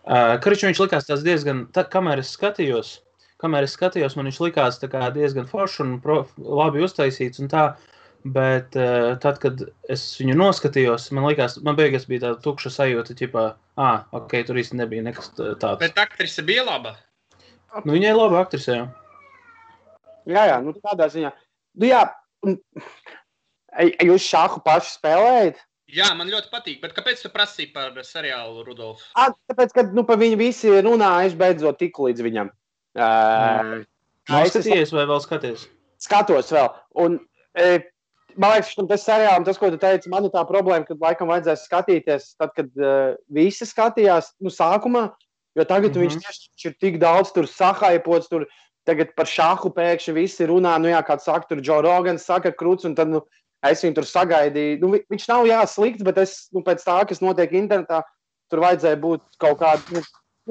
Kariču viņš likās tās diezgan, kamēr es skatījos, man viņš likās tā kā diezgan foršs un labi uztaisīts un tā, bet tad, kad es viņu noskatījos, man beigās bija tāda tukša sajūta, ķipā, ok, tur īsti nebija nekas tāds. Bet aktrise bija laba? Nu, viņai ir laba aktrise, jā. Jā, nu tādā ziņā. Nu jā, jūs šāhu paši spēlējat? Jā, man ļoti patīk, bet kāpēc tu prasīji par seriālu, Rudolf? Tāpēc, ka par viņu visi runājuši beidzot tiku līdz viņam. Skaties vai vēl skaties? Skatos vēl. Un, man liekas, tas seriālam, tas, ko tu teici, man ir tā problēma, kad laikam vajadzēs skatīties, tad, kad visi skatījās, sākumā, jo tagad viņš tieši ir tik daudz tur sahaipots, tur tagad par šahu pēkšņi visi runā, kāds saka, tur Joe Rogans saka kruts, un tad, es viņu tur sagaidīju. Viņš nav slikts, bet es, pēc tā, kas notiek internetā, tur vajadzēja būt kaut kādu,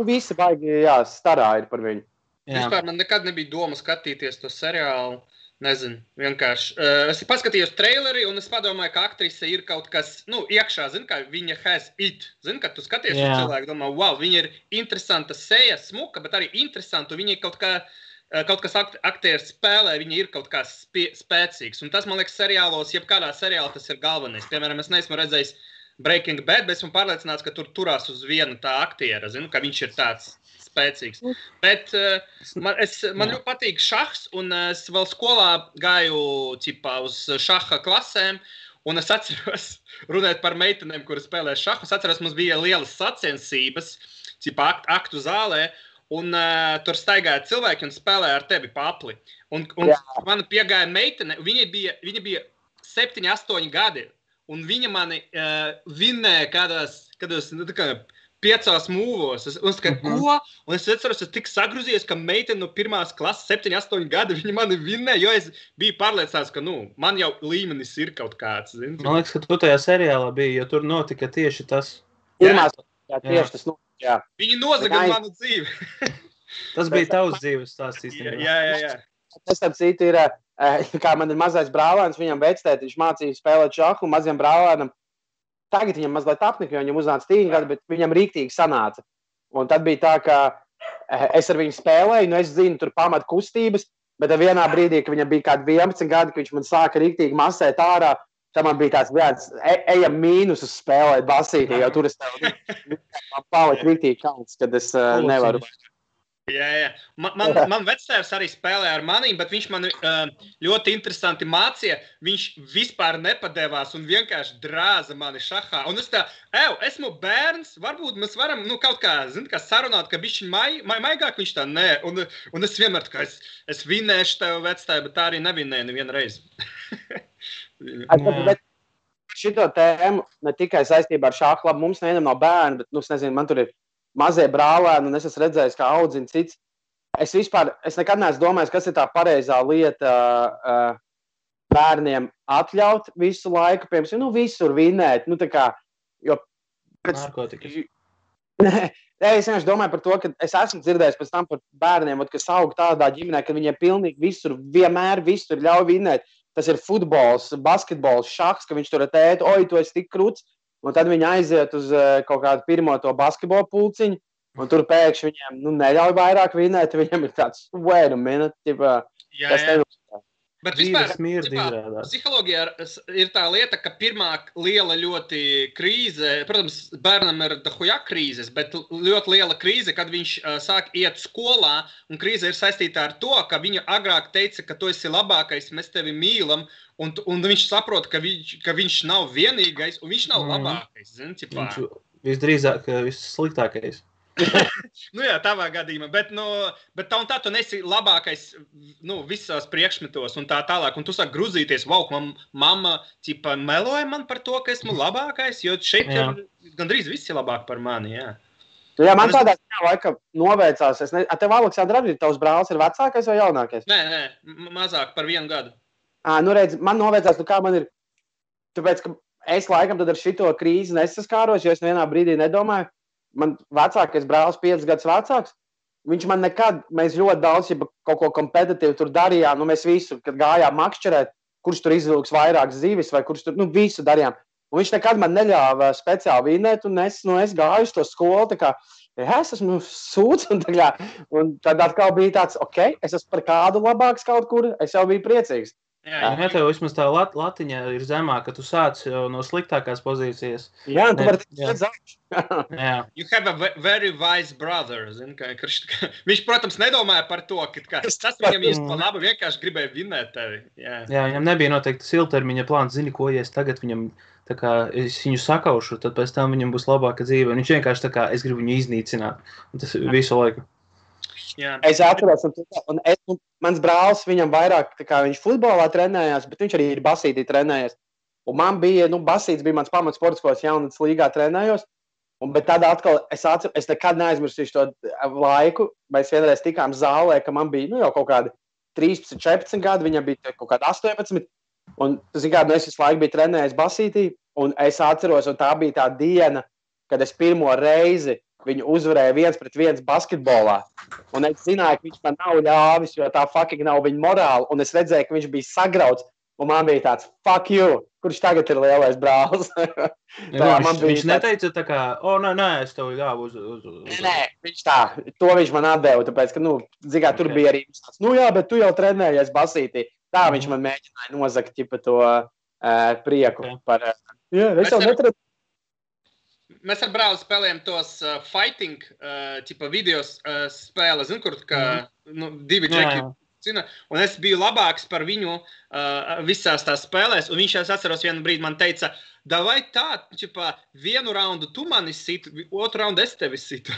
visi baigi, starā ir par viņu. Vispār man nekad nebija doma skatīties to seriālu, nezinu, vienkārši. Es paskatījos traileri, un es padomāju, ka aktrise ir kaut kas, iekšā, kā viņa has it. Kad tu skaties uz cilvēku, domā, wow, viņa ir interesanta seja, smuka, bet arī interesanta, un viņa ir kaut kas aktieris spēlē, viņa ir kaut kā spēcīgs. Un tas, man liekas, seriālos, jebkādā seriālā tas ir galvenais. Piemēram, es neesmu redzējis Breaking Bad, bet esmu pārliecināts, ka tur turās uz vienu tā aktiera, ka viņš ir tāds spēcīgs. Bet man ļoti patīk šahs, un es vēl skolā gāju uz šaha klasēm, un es atceros, runāt par meitenēm, kuras spēlē šahu, es atceros, mums bija lielas sacensības, aktu zālē, un tur staigāja cilvēki un spēlēja ar tevi papli. Un man piegāja meitene, viņa bija 7-8 gadi, un viņa mani vinnēja kādos 5 mūvos. Un es kā, ko? Un es atceros, es tik sagrūzies, ka meitene no pirmās klases 7-8 gadi viņa mani vinnēja, jo es biju pārliecināts, ka, man jau līmenis ir kaut kāds. Zini? Man liekas, ka tu tajā seriālā biji, jo tur notika tieši tas. Tieši tas notika. Jā. Viņi nozaga manu dzīvi. Tas bija tavs dzīves stāsts īstenībā. Jā. Tas tāds citu ir, kā man ir mazais brālēns, viņam vectēt, viņš mācīja spēlēt šahu, maziem brālēnam. Tagad viņam mazliet apnika, jo viņam uznāca 3 gadi, bet viņam rīktīgi sanāca. Un tad bija tā, ka es ar viņu spēlēju, es zinu tur pamat kustības, bet vienā brīdī, ka viņam bija kādi 11 gadi, ka viņš man sāka rīktīgi masēt ārā, tad man bija tāds viens, ejam mīnusus spēlēt basītī, jo tur es man palika rīktīgi kauns, kad es nevaru. Jā. Man vectēvs arī spēlē ar manīm, bet viņš man ļoti interesanti mācīja. Viņš vispār nepadevās un vienkārši drāza mani šahā. Un es esmu bērns, varbūt mēs varam kaut kā sarunāt, ka bišķiņ maigāk viņš tā nē. Un es vienmēr tā kā es vinnēšu tev vectēvu, bet tā arī nevinnēju nevienu reizi. Bet šito tēmu ne tikai saistībā ar šāhu, labi, mums nevienam nav bērni, bet, es nezinu, man tur ir mazie brālēni, un es esmu redzējis, kā audzina cits. Es nekad neesmu domājis, kas ir tā pareizā lieta bērniem atļaut visu laiku, piemēram, visur vinnēt, jo... Narkotikas. Es vienkārši domāju par to, ka es esmu dzirdējis pēc tam par bērniem, kas aug tādā ģimenē, ka viņiem pilnīgi visur, vienmēr visur ļauj vinnēt. Tas ir futbols, basketbols, šahs, ka viņš tur ar tētu, tu esi tik kruts, un tad viņi aiziet uz kaut kādu pirmo to basketbolu pulciņu, un tur pēkšņi viņiem neļauj vairāk vinnēt, viņam ir tāds, wait a minute, kas tev. Bet vispār, psiholoģijā ir tā lieta, ka pirmā liela ļoti krīze, protams, bērnam ir dahuja krīzes, bet ļoti liela krīze, kad viņš sāk iet skolā, un krīze ir saistīta ar to, ka viņa agrāk teica, ka tu esi labākais, mēs tevi mīlam, un viņš saprot, ka viņš nav vienīgais, un viņš nav labākais. Zin, viņš visdrīzāk vissliktākais. Jā, tavā gadījumā, bet tā un tā tu nesi labākais visās priekšmetos un tā tālāk, un tu sāk gruzīties, mamma meloja man par to, ka esmu labākais, jo šeit ir gandrīz visi labāk par mani, jā. Jā, man tādā laika noveicās, tev, Aleksandra, arī tavs brālis ir vecākais vai jaunākais? Nē, mazāk par 1 gadu. Redz, man noveicās, kā man ir, tāpēc, ka es laikam tad ar šito krīzi nesaskāros, jo es vienā brīdī nedomāju. Man vecākais brālis 5 gadus vecāks, viņš man nekad, mēs ļoti daudz kaut ko kompetitīvu tur darījām, mēs visu, kad gājām makšķerēt, kurš tur izvilks vairāk zivis vai kurš tur, visu darījām. Un viņš nekad man neļāva speciāli vinēt, un es gāju uz to skolu, tā kā, es esmu sūds, un tad atkal bija tāds, es esmu par kādu labāks kaut kur, es jau biju priecīgs. Jā, tev vismaz tā latiņa ir zemā, ka tu sāc jau no sliktākās pozīcijas. Jā, tu vari tikt zaudēt. You have a very wise brother. Viņš, protams, nedomāja par to, ka tas viņam īsti pa labu vienkārši gribēja vinēt tevi. Jā, viņam nebija noteikti ilgtermiņa plāns. Zini, ko, ja es tagad viņam, tā kā, es viņu sakaušu, tad pēc tam viņam būs labāka dzīve. Un viņš vienkārši tā kā, es gribu viņu iznīcināt. Un tas visu laiku. Jā. Es atceros, un mans brālis, viņam vairāk, tā kā viņš futbolā trenējās, bet viņš arī ir basītī trenējies. Un man bija, basīts bija mans pamats sports, ko es jaunatnes līgā trenējos. Bet tad atkal es nekad neaizmirsīšu to laiku. Mēs vienreiz tikām zālē, ka man bija jau kaut kādi 13, 14 gadi, viņam bija kaut kādi 18. Un, es visu laiku biju trenējies basītī, un es atceros, un tā bija tā diena, kad es pirmo reizi viņu uzvarēja 1-1 basketbolā. Un es zināju, ka viņš man nav ļāvis, jo tā fucking nav viņa morāla. Un es redzēju, ka viņš bija sagrauts. Un man bija tāds, fuck you, kurš tagad ir lielais brālis. Viņš neteica tā kā, nē, es tev ļāvu uz... Nē, viņš tā, to viņš man atdeva, tāpēc, ka, tur bija arī tāds, jā, bet tu jau trenējies basītī. Tā viņš man mēģināja nozagt, to prieku par... Jā, es jau netrenu. Mēs ar brāli spēlējam tos fighting video spēles, kur divi džeki cina, un es biju labāks par viņu visās tās spēlēs, un viņš, es atceros, vienu brīdi man teica, davai tā, vienu raundu tu mani situ, otru raundu es tevi situ.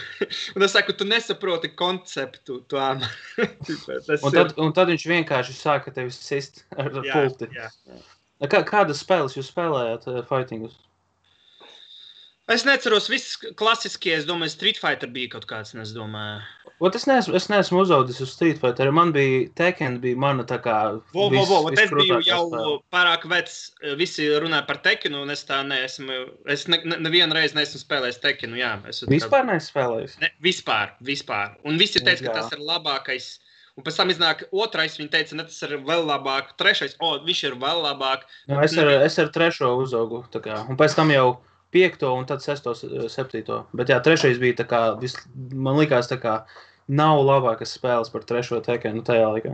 Un es saku, tu nesaproti konceptu. Un tad viņš vienkārši sāka tevi sist ar pulti. Jā. Kādas spēles jūs spēlējāt fightingus? Es neceros, viss klasiskie, es domāju, Street Fighter bija kaut kāds, es domāju. Es neesmu uzaudis uz Street Fighter, man bija Tekken, bija mana tā kā... Es biju jau pārāk vecs, visi runāja par Tekkenu, un es tā neesmu, es nevienu reizi neesmu spēlējis Tekkenu, jā. Vispār neesmu spēlējis? Ne, vispār. Un visi teica, ka tas ir labākais. Un pēc tam iznāk otrais, viņi teica, ne, tas ir vēl labāk. Trešais, viņš ir vēl labāk. Es ar trešo uzaugu, tā kā, un pēc tam jau 5. un tad 6. 7. Bet jā, trešais bija tā kā, man likās tā kā, nav labākas spēles par trešo Tekkenu tajā laikā.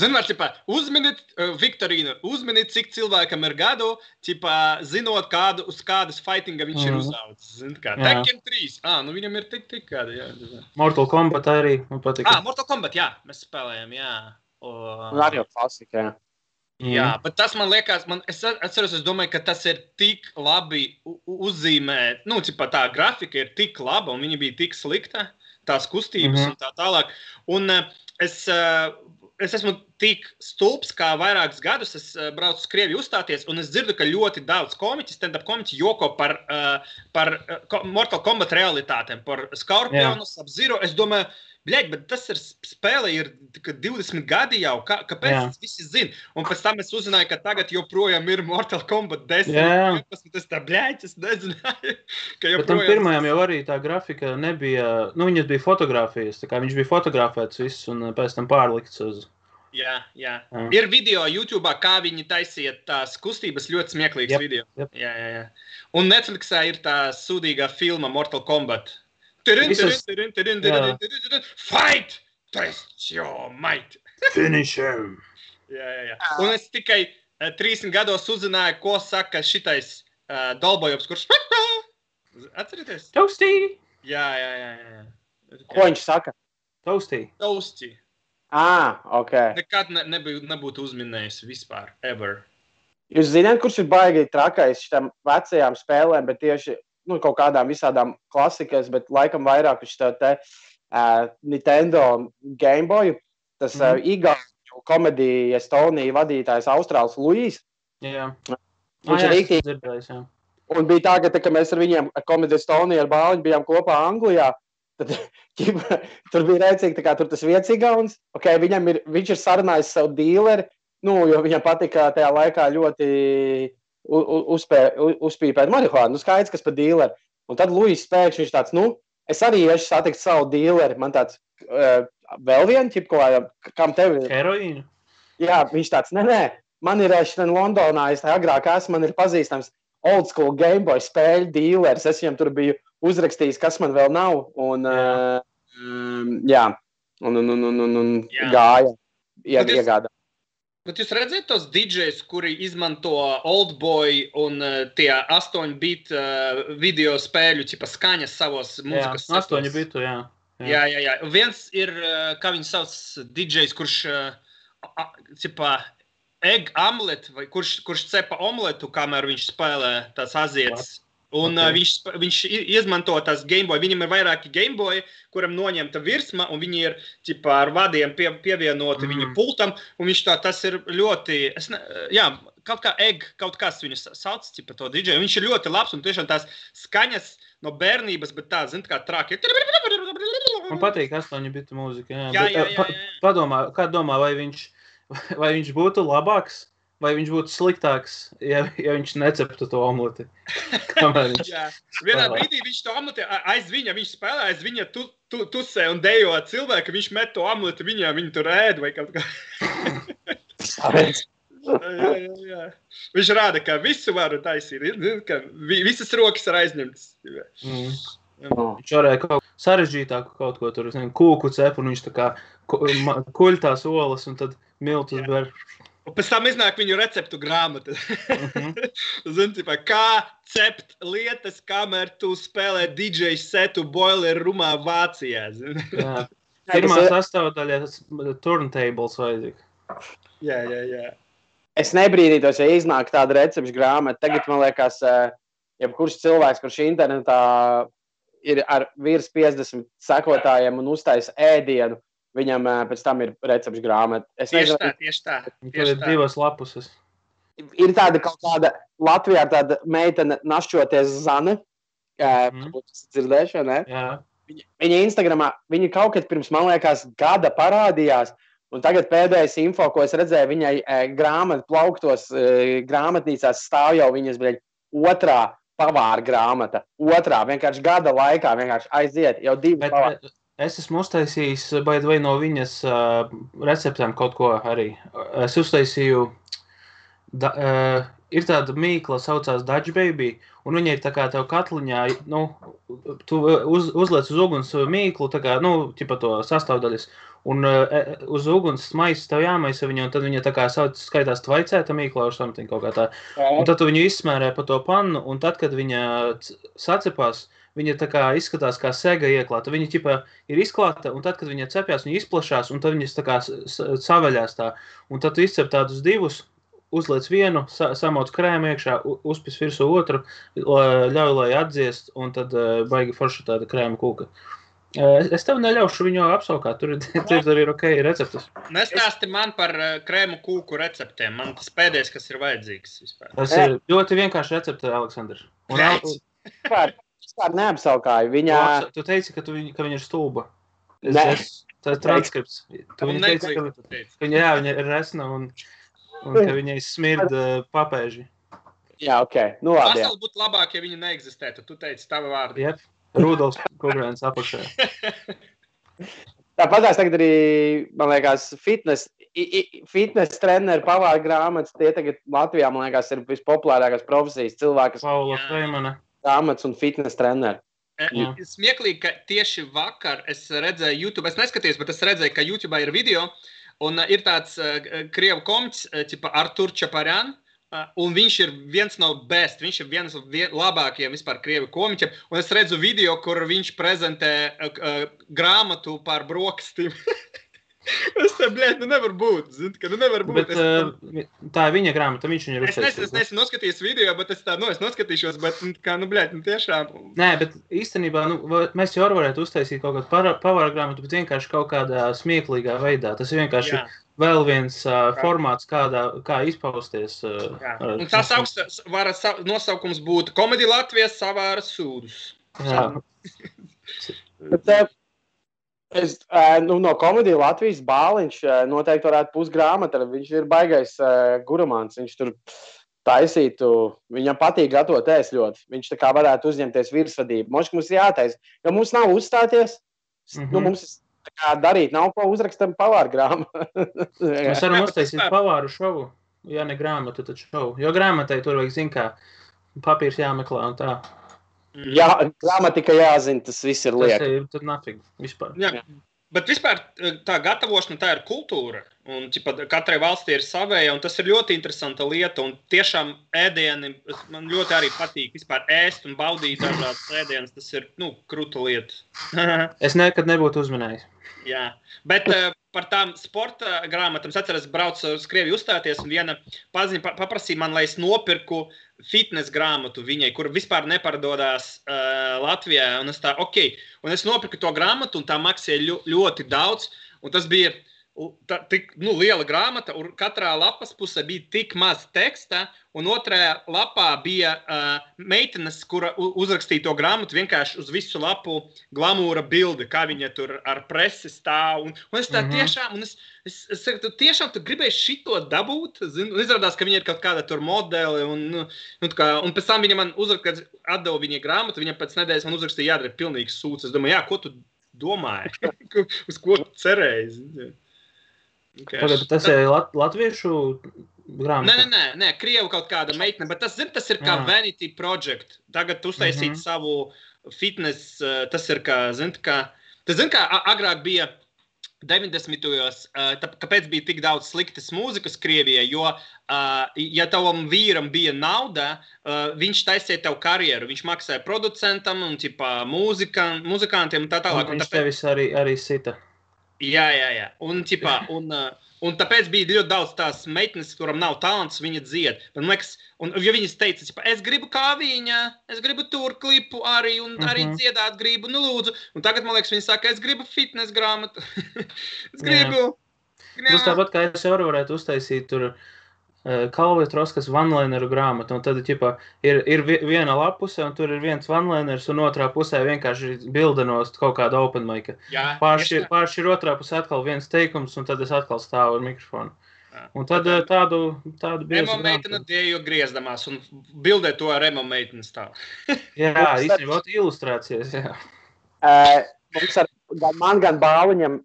Zināt, uzminiet, Viktorīna, cik cilvēkam ir gadu, zinot, uz kādas fightinga viņš ir uzaudzis. Tekken 3, viņam ir tik kādi, jā. Mortal Kombat arī, man patīk. Mortal Kombat, jā, mēs spēlējam, jā. Un arī jau klasika, jā. Jā, bet tas man liekas, es atceros, es domāju, ka tas ir tik labi uzzīmēt, tā grafika ir tik laba un viņa bija tik slikta, tās kustības un tā tālāk. Un es esmu tik stulbs, kā vairākus gadus es braucu uz Krieviju uzstāties, un es dzirdu, ka ļoti daudz komiķi, stand-up komiķi joko par Mortal Kombat realitātēm, par Scorpionu, Sub-Zero. Es domāju, bet tas ir spēle, ir 20 gadi jau, kāpēc tas visi zina? Un pēc tam es uzzināju, ka tagad joprojām ir Mortal Kombat 10. Es tā, es nezināju, ka joprojām... Bet tam pirmajam jau arī tā grafika nebija, viņas bija fotogrāfijas, tā kā viņš bija fotografēts viss un pēc tam pārlikts uz... Jā. Ir video YouTube'ā, kā viņi taisiet tās kustības, ļoti smieklīgs video. Jā. Un Netflixā ir tā sūdīgā filma Mortal Kombat. Fight! Test your might! Finish him! Jā. Un es tikai 30 gados uzzināju, ko saka šitais Dolbojovs, kurš... Atcerieties? Toastī! Jā. Ko viņš saka? Toastī. Ok. Nekad nebūtu uzminējis vispār, ever. Jūs zināt, kurš ir baigi trakais šitām vecajām spēlēm, bet tieši kaut kādām visādām klasikas, bet laikam vairāk uz te Nintendo Game Boy, tas igauņu komedija Estonija vadītājs Austrāls Luīs. Jā. Viņš ir rīktīgi. Un bija tā, ka mēs ar viņiem komediju Estoniju ar bāliņu bijām kopā Anglijā. Tad tur bija rēcīgi, kā tur tas viens igauns. Viņš ir sarunājis savu dīleri, jo viņam patika tajā laikā ļoti uzpīpēt marihuānu. Skaidrs, kas par dīleri. Un tad Luīs pēkšņi viņš tāds, es arī iešu satikt savu dīleri. Man tāds, vēl vienu ķipu, kam tev ir? Heroīnu? Jā, viņš tāds, nē, man ir šitien Londonā, es agrāk esmu, man ir pazīstams. old school Game Boy spēļu dealers. Es viņam tur biju uzrakstījis, kas man vēl nav. Un, un gāja. Iegādā. Bet jūs redzat tos DJs, kuri izmanto Oldboy un tie 8-bit video spēļu ķipa skaņas savos mūzikas setos? 8-bitu, jā. Jā. Viens ir, kā viņi sauc, DJs, kurš ķipa egg omelet, vai kurš cepa omletu, kamēr viņš spēlē tās azietas. Un viņš izmanto tās Gameboy. Viņam ir vairāki Gameboy, kuram noņemta virsma, un viņi ir ķipā ar vadiem pievienoti viņa pultam, un viņš tas ir ļoti, kaut kas viņu sauc, ķipa to DJ. Viņš ir ļoti labs, un tiešām tās skaņas no bērnības, bet tā, zin, kā traki. Man patīk 8-bitu mūzika, jā. Jā. Padomā, kā domā, vai viņš būtu labāks? Vai viņš būtu sliktāks, ja viņš neceptu to omleti? Jā. Vienā brīdī viņš to omleti viņš spēlē aiz viņa tusē un dejo cilvēku, viņš met to omleti viņu tur ēd vai kaut kā. Jā. Viņš rāda, ka visu varu taisīt, ka visas rokas ir aizņemtas. Viņš varēja kaut sarežģītāku kaut ko tur, kūku cep, un viņš tā kā kuļ tās olas un tad miltus ber. Un pēc tam iznāk viņu receptu grāmata. Zini, kā cept lietas, kamēr tu spēlē DJ setu boiler rumā Vācijā. Jā. Pirmā sastāvdaļa turntables vajadzīga. Jā. Es nebrīdītos, ja iznāk tāda recepšu grāmata. Tagad, man liekas, jebkurš cilvēks, kurš internetā ir ar virs 50 sekotājiem un uztais ēdienu, viņam pēc tam ir recepšu grāmata. Tieši tā. Tur ir 2 lapuses. Ir tāda kaut kāda Latvijā tāda meitene našķoties Zane. Varbūt tas dzirdēšu, ne? Jā. Viņa Instagramā, viņa kaut kad pirms, man liekas, gada parādījās, un tagad pēdējais info, ko es redzēju, viņai grāmatu plauktos grāmatnīcās stāv jau viņas, otrā pavāra grāmata. Otrā, vienkārši gada laikā, vienkārši aiziet, jau 2 pavāri. Es esmu uztaisījis vai no viņas receptēm kaut ko arī. Es uztaisīju, ir tāda mīkla, saucās Dutch Baby, un viņa ir tā kā tev katliņā, tu uzliec uz uguns mīklu, tā kā, ķipa to sastāvdaļas, un uz uguns maisa tev jāmaisa viņa, un tad viņa tā kā skaitās tvaicēta mīkla, or something kaut kā tā. Un tad tu viņu izsmērē pa to pannu, un tad, kad viņa sacepās, viņa tā kā izskatās kā sega ieklāta. Viņa ķipa ir izklāta, un tad, kad viņa cepjās, viņa izplašās, un tad viņas tā kā saveļās tā. Un tad tu izcep tādus 2, uzliec vienu, samoc krēmu iekšā, uzpis virsū otru, ļauj, lai atdziest, un tad baigi forša tāda krēma kūka. Es tev neļaušu viņu apsaukāt, tur ir ok receptes. Nestāsti man par krēmu kūku receptēm, man tas pēdējais, kas ir vajadzīgs vispār. Tas ir ļoti vienkārši recepte, Aleksandrs. Vispār neapsaukāju. Tu teici, ka viņa ir stulba. Tas ir transkripts. Tu viņa teici, ka viņa ir resna un ka viņai smird papēži. Jā, ok. Nu labi. Pasauli būtu labāk, ja viņa neeksistētu. Tu teici tavu vārdu. Jep. Rudolfs Kugrēns apakšā. Tāpatās tagad arī, man liekas, fitness treneru pavāra grāmatas, tie tagad Latvijā, man liekas, ir vispopulārākās profesijas cilvēkas. Paula Freimana. Grāmatas un fitness treneri. Smieklīgi, ka tieši vakar es redzēju YouTube, es neskatījos, bet es redzēju, ka YouTube'ā ir video, un ir tāds krievu komiķis, ķipa Artur Čaparjan, un viņš ir viens no best, viņš ir viens no labākajiem vispār krievu komiķiem, un es redzu video, kur viņš prezentē grāmatu par brokastīm. Es te, nevar būt, zini, ka nevar būt. Bet tā ir viņa grāmata, viņš viņu ir uztaisījis. Es neesmu noskatījis video, bet es noskatīšos, bet kā, tiešām. Nē, bet īstenībā, mēs jau varētu uztaisīt kaut kādu pavāra grāmatu, bet vienkārši kaut kādā smieklīgā veidā. Tas ir vienkārši vēl viens formāts, kā izpausties. Un tas nosaukums būtu Komēdija Latvijas savāra sūdus. Jā. No Komēdija Latvijas Bāliņš noteikti varētu pusgrāmata. Viņš ir baigais gurmāns. Viņš tur taisītu, viņam patīk gatavot ēst ļoti. Viņš tā kā varētu uzņemties virsvadību. Moški mums jātaisa, jo mums nav uzstāties. Mums tā kā darīt nav ko uzrakstam pavāru grāmatu. Mēs varam uztaisīt pavāru šovu. Ja ne grāmatu, tad šovu. Jo grāmatai tur vajag, zin kā, papīrs jāmeklē un tā. Jā, gramatika jāzina, tas viss ir liek. Tas ir tad nafig vispār. Jā. Bet vispār tā gatavošana, tā ir kultūra. Un katrai valstī ir savēja, un tas ir ļoti interesanta lieta. Un tiešām ēdieni, man ļoti arī patīk vispār ēst un baudīt dažādas ēdienas. Tas ir, kruta lieta. Es nekad nebūtu uzmanējis. Jā, bet par tām sporta grāmatām es atceros, braucu uz Krieviju uzstāties, un viena paziņa paprasīja man, lai es nopirku fitness grāmatu viņai, kur vispār neparadodās Latvijā. Un es tā, un es nopirku to grāmatu, un tā maksāja ļoti daudz, un tas bija tik liela grāmata, un katrā lapas pusē bija tik maz teksta, un otrajā lapā bija meitenes, kura uzrakstīja to grāmatu vienkārši uz visu lapu glamūra bildi, kā viņa tur ar presi stāv. Un es tā tiešām, un es saku, tiešām tu gribēji šito dabūt, un izrādās, ka viņa ir kaut kāda tur modeli, un pēc tam viņa man atdeva viņa grāmatu, viņa pēc nedēļas man uzrakstīja, jādara pilnīgs sūds. Es domāju, ko tu domāji? Uz ko tu cerēji? Tagad tas ir latviešu grāmata? Nē, Krievu kaut kāda meitene, bet tas ir kā Vanity Project. Tagad uztaisīt savu fitness, tas ir kā, kā agrāk bija 90-ojos, kāpēc bija tik daudz sliktas mūzikas Krievijai, jo, ja tavam vīram bija nauda, viņš taisīja tev karjeru, viņš maksāja producentam un muzikantiem un tā tālāk. Un viņš tevis arī sita. Jā. Un tāpēc bija ļoti daudz tās meitenes, kuram nav talants, viņa dzied. Man liekas, jo viņas teica, es gribu kā viņa, es gribu tur klipu arī, un arī dziedāt gribu, lūdzu. Un tagad, man liekas, viņa saka, es gribu fitness grāmatu. Es gribu. Tas tāpat, kā es jau varētu uztaisīt tur Kalvietroskas vanlaineru grāmatu, un tad ir viena lapuse, un tur ir viens vanlainers, un otrā pusē vienkārši bildenost kaut kāda open mica. Pārši ir otrā pusē atkal viens teikums, un tad es atkal stāvu ar mikrofonu. Un tad tādu biezu grāmatu. Emo meitene dēju griezdamās, un bildē to ar emo meiteni stāv. Jā, īstenībā ilustrācijas, jā. Man gan Bāliņam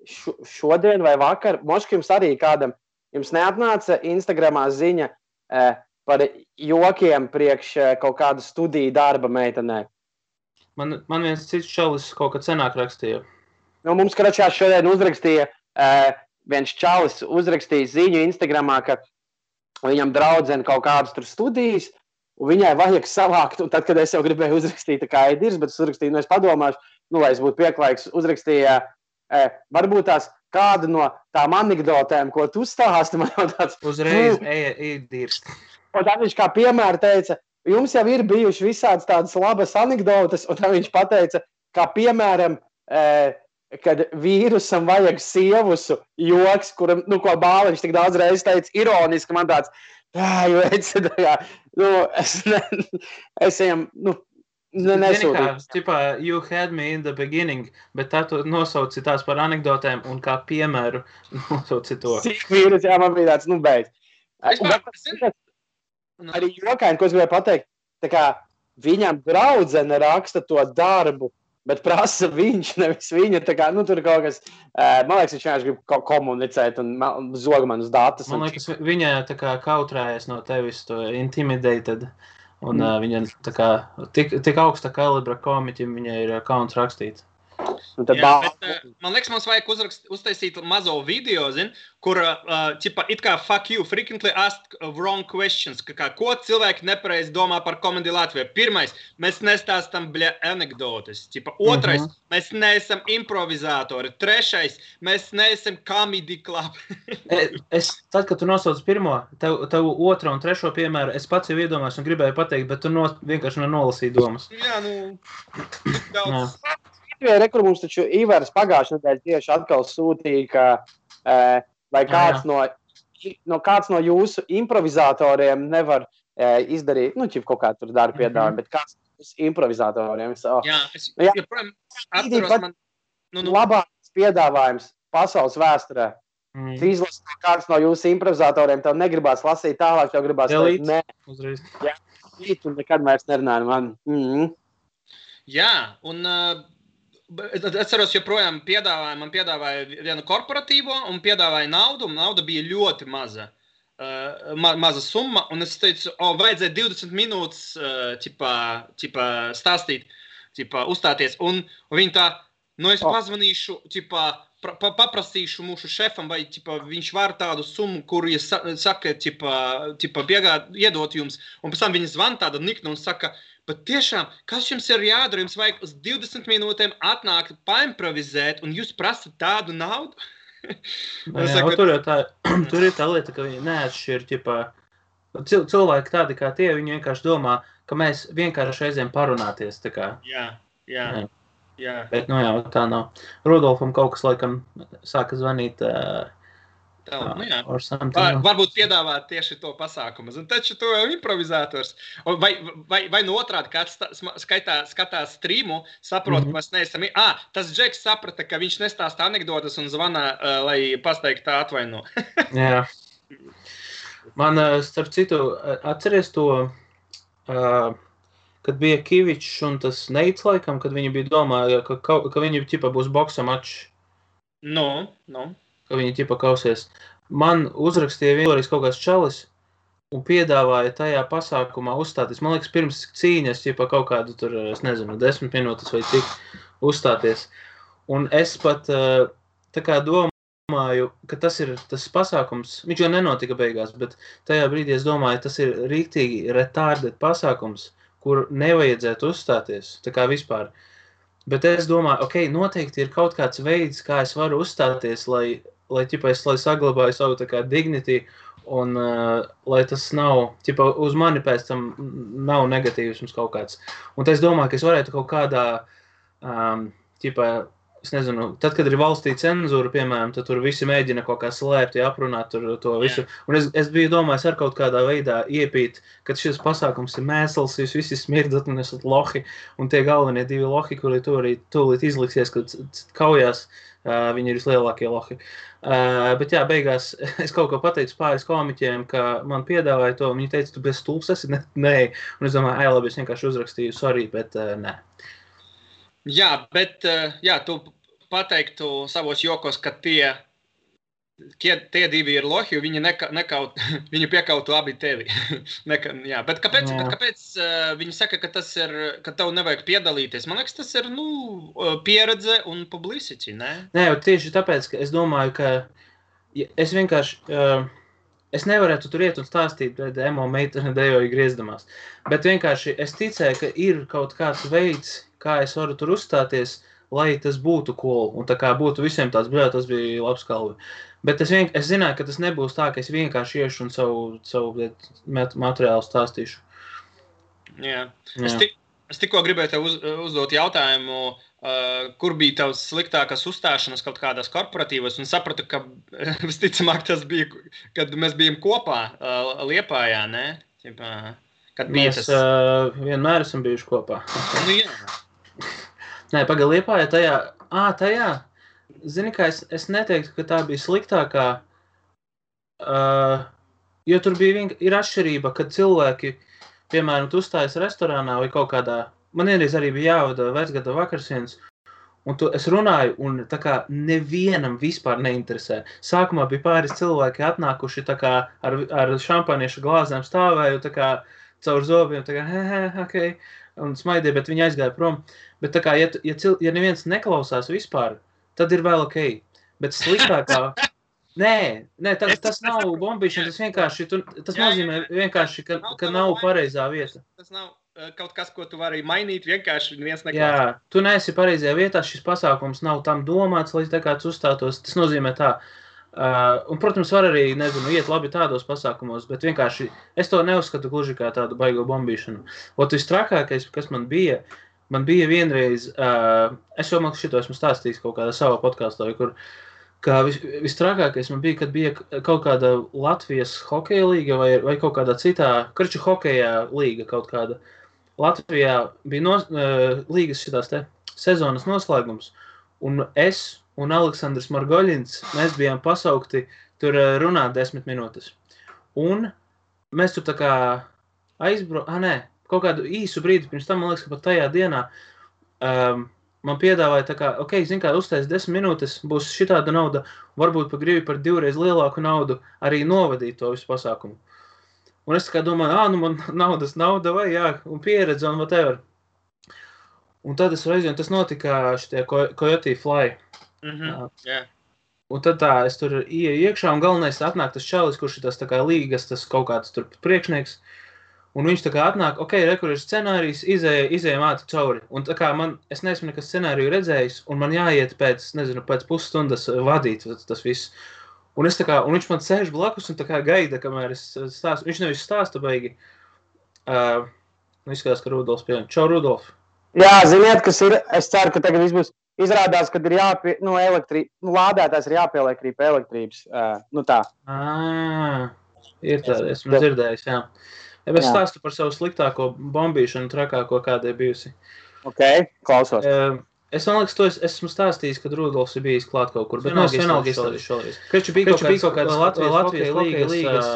šodien vai vakar, moški jums arī kādam, jums neatnāca Instagramā ziņa par jokiem priekš kaut kādu studiju darba meitenē? Man viens cits čalis kaut kad senāk rakstīja. Mums kračā šodien uzrakstīja, viens čalis uzrakstīja ziņu Instagramā, ka viņam draudzene kaut kādas tur studijas, un viņai vajag savākt, un tad, kad es jau gribēju uzrakstīt kā Edirs, bet es uzrakstīju, es padomāšu, lai es būtu pieklājīgs, uzrakstīja varbūt tās kādu no tām anekdotēm, ko tu stāsti, man jau tāds... Uzreiz dirst. Un tad viņš kā piemēra teica, jums jau ir bijuši visādas tādas labas anekdotes, un tad viņš pateica, kā piemēram, kad vīrusam vajag sievusu joks, kuram, ko Bāliņš tik daudz reizes teica, ironiski, man tāds, es ejam, nesūdīju. You had me in the beginning, bet tā tu nosauci tās par anekdotēm un kā piemēru nosauci to. Cik vīrus, jā, man bija tāds, beidz. Arī jokaini, ko es gribēju pateikt, tā kā viņam draudzene raksta to darbu, bet prasa viņš, nevis viņa, tā kā, tur kaut kas, man liekas, viņš vienkārši grib komunicēt un zog man uz datus. Man liekas, viņa tā kā kautrējas no tevis, to intimidated. Un viņa tā kā tik augsta kalibra komiķim viņai ir kauns rakstīt. Man liekas, mums vajag uztaisīt mazo video, kur it kā fuck you, frequently asked wrong questions, ko cilvēki nepareizi domā par komēdiju Latvijā. Pirmais, mēs nestāstam anekdotes. Otrais, mēs neesam improvizatori. Trešais, mēs neesam comedy club. Tad, kad tu nosauc pirmo, tev otro un trešo piemēru, es pats jau iedomājos un gribēju pateikt, bet tu vienkārši nolasīji domas. Jā, tik daudz. Kur mums taču Ivars pagājušajā nedēļā tieši atkal sūtīja, ka vai kāds no jūsu improvizatoriem nevar izdarīt, kaut kā tur darba piedāvājumu, bet kāds no improvizatoriem. Jā, es joprojām atceros man... Labākais piedāvājums pasaules vēsturē. Tu izlasi kāds no jūsu improvizatoriem, tev negribās lasīt tālāk, tev gribās teikt, nē. Uzreiz. Jā, un nekad vairs nerunāju man. Jā, un... Es atceros, joprojām man piedāvāja vienu korporatīvo un piedāvāja naudu, un nauda bija ļoti maza. maza summa, un es teicu, vajadzēja 20 minūtes ķipā stāstīt, uzstāties, un viņi tā, es pazvanīšu, paprasīšu mūsu šefam, vai viņš var tādu summu, kuru, ja saka, iedot jums, un pēc tam viņi zvan tāda nikna un saka, bet tiešām, kas jums ir jādara, jums vajag uz 20 minūtēm atnākt, paimprovizēt, un jūs prasat tādu naudu? Tur ir tā lieta, ka viņi neatšķir, cilvēki tādi kā tie, viņi vienkārši domā, ka mēs vienkārši reizēm parunāties, tā kā. Jā. Bet, tā nav. Rudolfam kaut kas, laikam, sāka zvanīt, varbūt piedāvāt tieši to pasākumu. Un taču to improvizators. Vai no otrādi kāds skatās streamu, saprot, ka mēs neesam... Tas Džeks saprata, ka viņš nestāsta anekdotas un zvana, lai pasteiktu tā atvaino. Jā. Man, starp citu, atceries to, kad bija Kivičs un tas Neits laikam, kad viņi bija domāja, ka viņi būs boksa mačs. No. Ka viņi kausies. Man uzrakstīja vienreiz kaut kāds čalis un piedāvāja tajā pasākumā uzstāties. Man liekas, pirms cīņas kaut kādu tur, es nezinu, 10 minūtes vai cik uzstāties. Un es pat tā kā domāju, ka tas ir tas pasākums, viņš jau nenotika beigās, bet tajā brīdī es domāju, tas ir rīktīgi retarded pasākums, kur nevajadzētu uzstāties, tā kā vispār. Bet es domāju, noteikti ir kaut kāds veids, kā es varu uzstāties, lai saglabāju savu tā kā dignity un lai tas nav, uz mani pēc tam nav negatīvisms kaut kāds. Un es domāju, ka es varētu kaut kādā, es nezinu, tad, kad ir valstī cenzūra, piemēram, tad tur visi mēģina kaut kā slēpt, aprunāt to visu. Un es biju domājis ar kaut kādā veidā iepīt, kad šis pasākums ir mēsls, jūs visi smirdat un esat lohi, un tie galvenie divi lohi, kuri tūlīt izliksies, kad kaujās, viņi ir vislielākie lohi. Bet jā, beigās es kaut ko pateicu pāris komiķiem, ka man piedāvāja to, un viņi teica, tu bez stulps esi? Nē. Un es domāju, labi, es vienkārši uzrakstīju, sorry, bet nē. Jā, bet tu pateiktu savos jokos, ka tie divi ir lohi, viņi viņi piekautu abi tevi. Bet kāpēc viņi saka, ka tas ir, ka tev nevajag piedalīties? Man liekas, tas ir, pieredze un publicity, ne? Nē, tieši tāpēc, ka es domāju, ka es vienkārši, es nevarētu tur iet un stāstīt pret emo meiteni dejoju griezdamās, bet vienkārši es ticēju, ka ir kaut kāds veids, kā es varu tur uzstāties, lai tas būtu cool, un tā kā būtu visiem tāds, tas bija labs kalvi. Bet es zināju, ka tas nebūs tā, ka es vienkārši iešu un savu materiālu stāstīšu. Jā. Es tikko gribēju tev uzdot jautājumu, kur bija tavs sliktākās uzstāšanas kaut kādās korporatīvos, un sapratu, ka visticamāk tas bija, kad mēs bijām kopā Liepājā, ne? Kad mēs vienmēr esam bijuši kopā. Jā. Nē, Liepājā tajā, zini, kā es neteiktu, ka tā bija sliktākā, jo tur ir atšķirība, kad cilvēki, piemēram, tu uzstājas restorānā vai kaut kādā, man vienreiz arī bija jāvada vecgada vakarsienas, un es runāju, un tā kā nevienam vispār neinteresē. Sākumā bija pāris cilvēki atnākuši tā kā ar šampaniešu glāzēm stāvēju, tā kā caur zobiem, tā kā, un smaidīja, bet viņi aizgāja prom. Bet tā kā, ja neviens neklausās vispār, tad ir vēl ok. Bet sliktākā... Nē, tas nav bombīšana, tas vienkārši, tas nozīmē vienkārši, ka nav pareizā vieta. Tas nav kaut kas, ko tu vari mainīt, vienkārši neviens neklausās. Jā, tu neesi pareizajā vietā, šis pasākums nav tam domāts, lai tā kāds uzstātos. Tas nozīmē tā. Un, protams, var arī, iet labi tādos pasākumos, bet vienkārši es to neuzskatu gluži kā tādu baigo bombīšanu. Vistrakākais, kas man bija vienreiz, es jau šito esmu stāstījis kaut kādā savā podkāstā, kur vistrakākais man bija, kad bija kaut kāda Latvijas hokeja līga vai kaut kādā citā, karču hokeja līga kaut kāda. Latvijā bija līgas šitās te sezonas noslēgums, un es un Aleksandrs Margoļins, mēs bijām pasaukti tur runāt 10 minūtes. Un mēs tur tā kā kaut kādu īsu brīdi pirms tam, man liekas, ka pat tajā dienā man piedāvāja tā kā, ok, zin kā, uztais 10 minūtes, būs šitāda nauda, varbūt pa gribi par 2 reiz lielāku naudu arī novadīt to visu pasākumu. Un es tā kā domāju, nu man nauda vai jā, un pieredze un whatever. Un tad es reizi, un tas notika šitie Coyote Fly. Yeah. Un tad es tur ieju iekšā, un galvenais atnāk tas čalis, kurš ir tas tā kā līgas, tas kaut kāds tur priekšnieks. Un viņš tā kā atnāk, ok, kur ir scenārijs, izējam ātri cauri. Un tā kā es neesmu nekas scenāriju redzējis, un man jāiet pēc pusstundas vadīt tas viss. Un viņš man sēž blakus un tā kā gaida, kamēr es stāstu. Viņš nevis stāsta baigi. Izskatās, ka Rudolfs pieņem. Čau, Rudolf! Jā, ziniet, kas ir, es ceru, ka tagad viss būs. Izrādās, ka ir lādētājs ir jāpieliek arī pie elektrības. Tā. Ir tāda, esmu dzirdējis, jā. Es stāstu par savu sliktāko bombīšanu, trakāko, kāda ir bijusi. Ok, klausos. Es man liekas, to esmu stāstījis, kad Rudolfs ir bijis klāt kaut kur, bet vienalga izstāstījis šoreiz. Kreču bija kaut kāds Latvijas līgas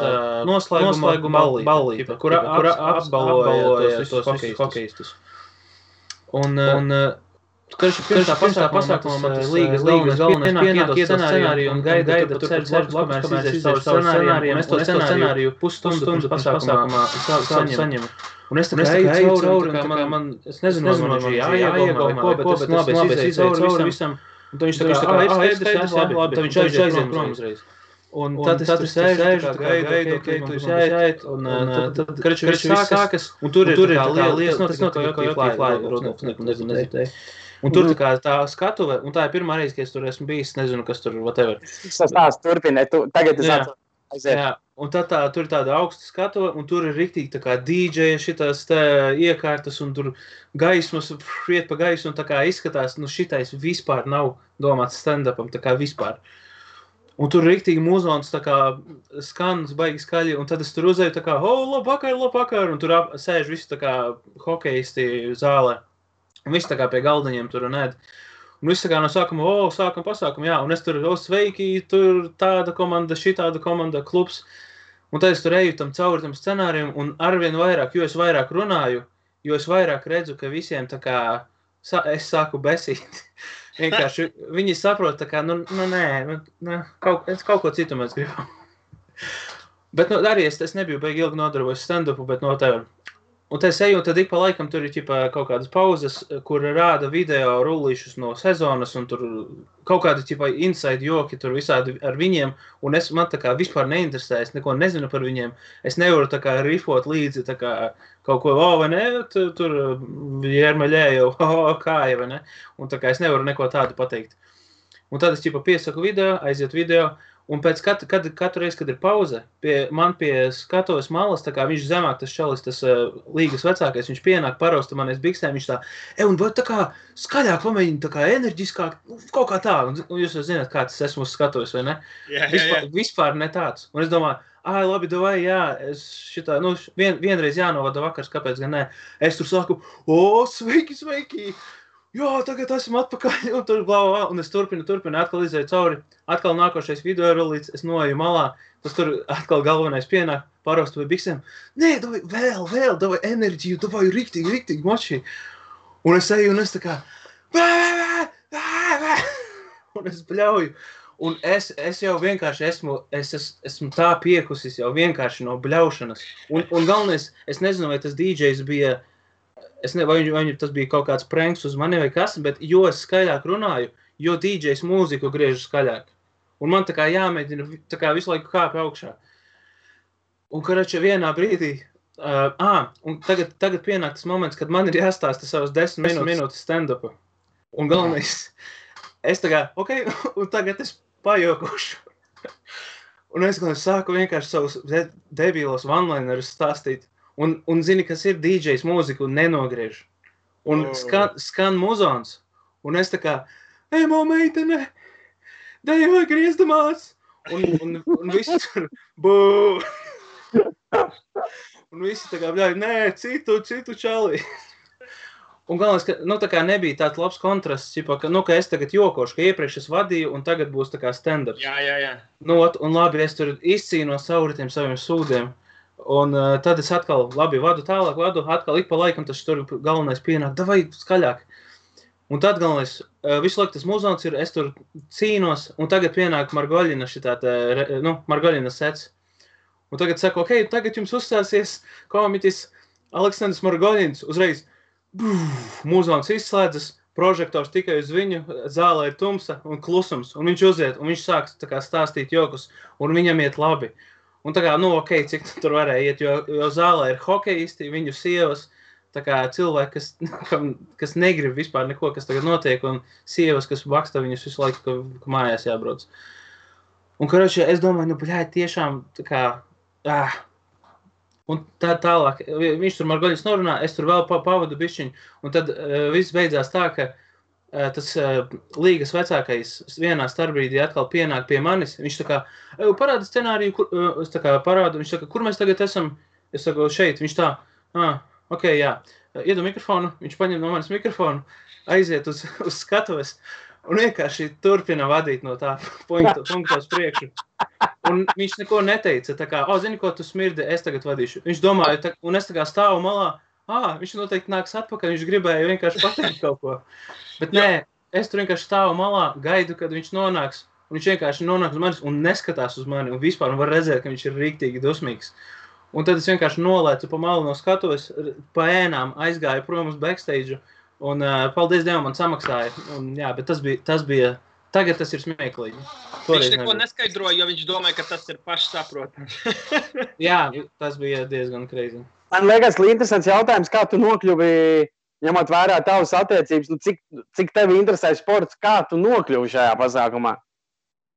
noslēguma ballīte, kur apbalvoja tos hokejistus. Un pirms tā pasākumā man tas līgas galvenais pienāk scenāriju un gaida tur ceļš blakus, kamēr es izdešu savu scenāriju, un es to scenāriju pusstundu pasākumā saņemu. Un es tā kā eju cauri, es nezinu, man jāiegomā vai ko, bet es labi izēju visam. Un tad viņš tā kā, skaidrs, labi, tad viņš aiziet prom uzreiz. Un tad es sēžu, gaidu, ok, tu jāiet, un tad, kreču, viss sākas, un tur ir tā liela, tas notika Coyote Fly, Rudolfs, nezinu. Un tur tā skatuve, un tā ir pirmā reize, ka es tur esmu bijis, nezinu, kas tur, whatever. Tas turpina, tagad es aiziet. Jā, un tad tur ir tāda augsta skatuve, un tur ir riktīgi tā kā DJ šitās iekārtas, un tur gaismas, iet pa gaisu, un tā kā izskatās, šitais vispār nav domāts stand-upam, tā kā vispār. Un tur riktīgi mūzons tā kā skanas baigi skaļi, un tad es tur uzēju tā kā, labvakar, un tur sēž visi tā kā hokejisti zālē. Un viss tā kā pie galdiņiem tur un ēd. Un viss tā kā no sākuma, sākam pasākumu, jā. Un es tur, sveiki, tur tāda komanda, šitāda komanda, klubs. Un tad es tur eju cauri tam scenārijam, un arvien vairāk, jo es vairāk runāju, jo es vairāk redzu, ka visiem tā kā, es sāku besīt. Vienkārši viņi saprot tā kā, kaut ko citu mēs gribam. Bet arī es nebiju baigi ilgi nodarbojis stand-upu, bet no tev. Un te es eju, un tad ik pa laikam tur ir kaut kādas pauzes, kur rāda video rullīšus no sezonas, un tur kaut kādi inside joki tur visādi ar viņiem, un man tā kā vispār neinteresē, es neko nezinu par viņiem, es nevaru tā kā rifot līdzi tā kā kaut ko, vai ne, tur Jermaļēju, kāja, vai ne, un tā kā es nevaru neko tādu pateikt. Un tad es piesaku video, aiziet video, un pēc katru reizi, kad ir pauze, man pie skatuves malas, tā kā viņš zemāk tas čalis, tas līgas vecākais, viņš pienāk parausta manies biksēm, viņš tā, un vai tā kā skaļāk pamēģina, tā kā enerģiskāk, kaut kā tā, un jūs jau zināt, kā tas esmu uz skatuves, vai ne? Vispār ne tāds. Un es domāju, labi, davai, jā, es šitā, vienreiz jānovada vakars, kāpēc gan ne? Es tur saku, sveiki! Jā, tagad esmu atpakaļ, un tur blau, un es turpinu, atkal izēju cauri, atkal nākošais video rulīts, es noeju malā, tas tur atkal galvenais pienāk, paraustu vai biksēm, nē, vēl, davai enerģiju, davai riktīgi moči, un es eju, un es tā kā, un es bļauju, un es jau vienkārši esmu tā piekusis jau vienkārši no bļaušanas, un galvenais, es nezinu, vai tas DJs bija, vai tas bija kaut kāds pranks uz mani vai kas, bet jo es skaļāk runāju, jo DJs mūziku griežu skaļāk. Un man tā kā jāmēģina tā kā visu laiku kāp augšā. Un karača vienā brīdī, un tagad pienāk tas moments, kad man ir jāstāsta savas 10 minūtes stand-upa. Un galvenais, es tā kā, ok, un tagad es pajokušu. Un es sāku vienkārši savus debīlos one-linerus stāstīt. Un zini, kas ir DJs mūziku un nenogriež. Un skan muzons. Un es tā kā, ejamo meitene, dejoj griezdamās. Un visi tur, bū. Un visi tā kā, bļauj, nē, citu čali. Un galvenais, ka, tā kā nebija tāds labs kontrasts, ka es tagad jokošu, ka iepriekš es vadīju un tagad būs tā kā stand-ups. Jā. Un labi, es tur izcīnos cauri tiem saviem sūdiem. Un tad es atkal, labi, vadu, atkal ik pa laikam tas tur galvenais pienāk, davai skaļāk. Un tad galvenais, visu laiku tas muzons ir, es tur cīnos, un tagad pienāk Margoļina Margoļina sets. Un tagad saka, ok, tagad jums uzstāsies komiķis Aleksandrs Margoļins, uzreiz muzons izslēdzas, prožektors tikai uz viņu, zālē ir tumsa un klusums, un viņš uziet, un viņš sāk tā kā stāstīt jokus, un viņam iet labi. Un tā kā, ok, cik tur varēja iet, jo zālē ir hokejisti, viņu sievas, tā kā cilvēki, kas negrib vispār neko, kas tagad notiek, un sievas, kas baksta viņus visu laiku, ka mājās jābrauc. Un, karoči, es domāju, tiešām tā kā, un tālāk, viņš tur Margoļins norunā, es tur vēl pavadu bišķiņu, un tad viss beidzās tā, ka tas līgas vecākais vienā starpbrīdī atkal pienāk pie manis, viņš tā kā, parāda scenāriju, es tā kā parādu, viņš saka, kur mēs tagad esam? Es saku, šeit, viņš tā, ok, jā, iedod mikrofonu, viņš paņem no manis mikrofonu, aiziet uz skatuves, un vienkārši turpina vadīt no tā punkta uz priekšu. Un viņš neko neteica, tā kā, zini, ko tu smirdi, es tagad vadīšu. Viņš domāja, un es tā kā stāvu malā, viņš noteikti nāks atpakaļ, viņš gribēja vienkārši pateikt kaut ko. Bet nē, es tur vienkārši stāvu malā, gaidu, kad viņš nonāks, un viņš vienkārši nonāk uz manis un neskatās uz mani, un vispār var redzēt, ka viņš ir rīktīgi dusmīgs. Un tad es vienkārši nolēcu pa malu no skatuves, pa ēnām aizgāju prom uz backstage, un paldies Dievam man samaksāja. Un, jā, bet tas bija tagad tas ir smieklīgi. Viņš neko neskaidroja, jo viņš domāja, ka tas ir pašsaprotams. Jā, tas bija diezgan crazy. Man liekas, interesants jautājums, kā tu nokļuvi, ņemot vērā tavas attiecības, cik tevi interesē sports, kā tu nokļuvi šajā pasākumā?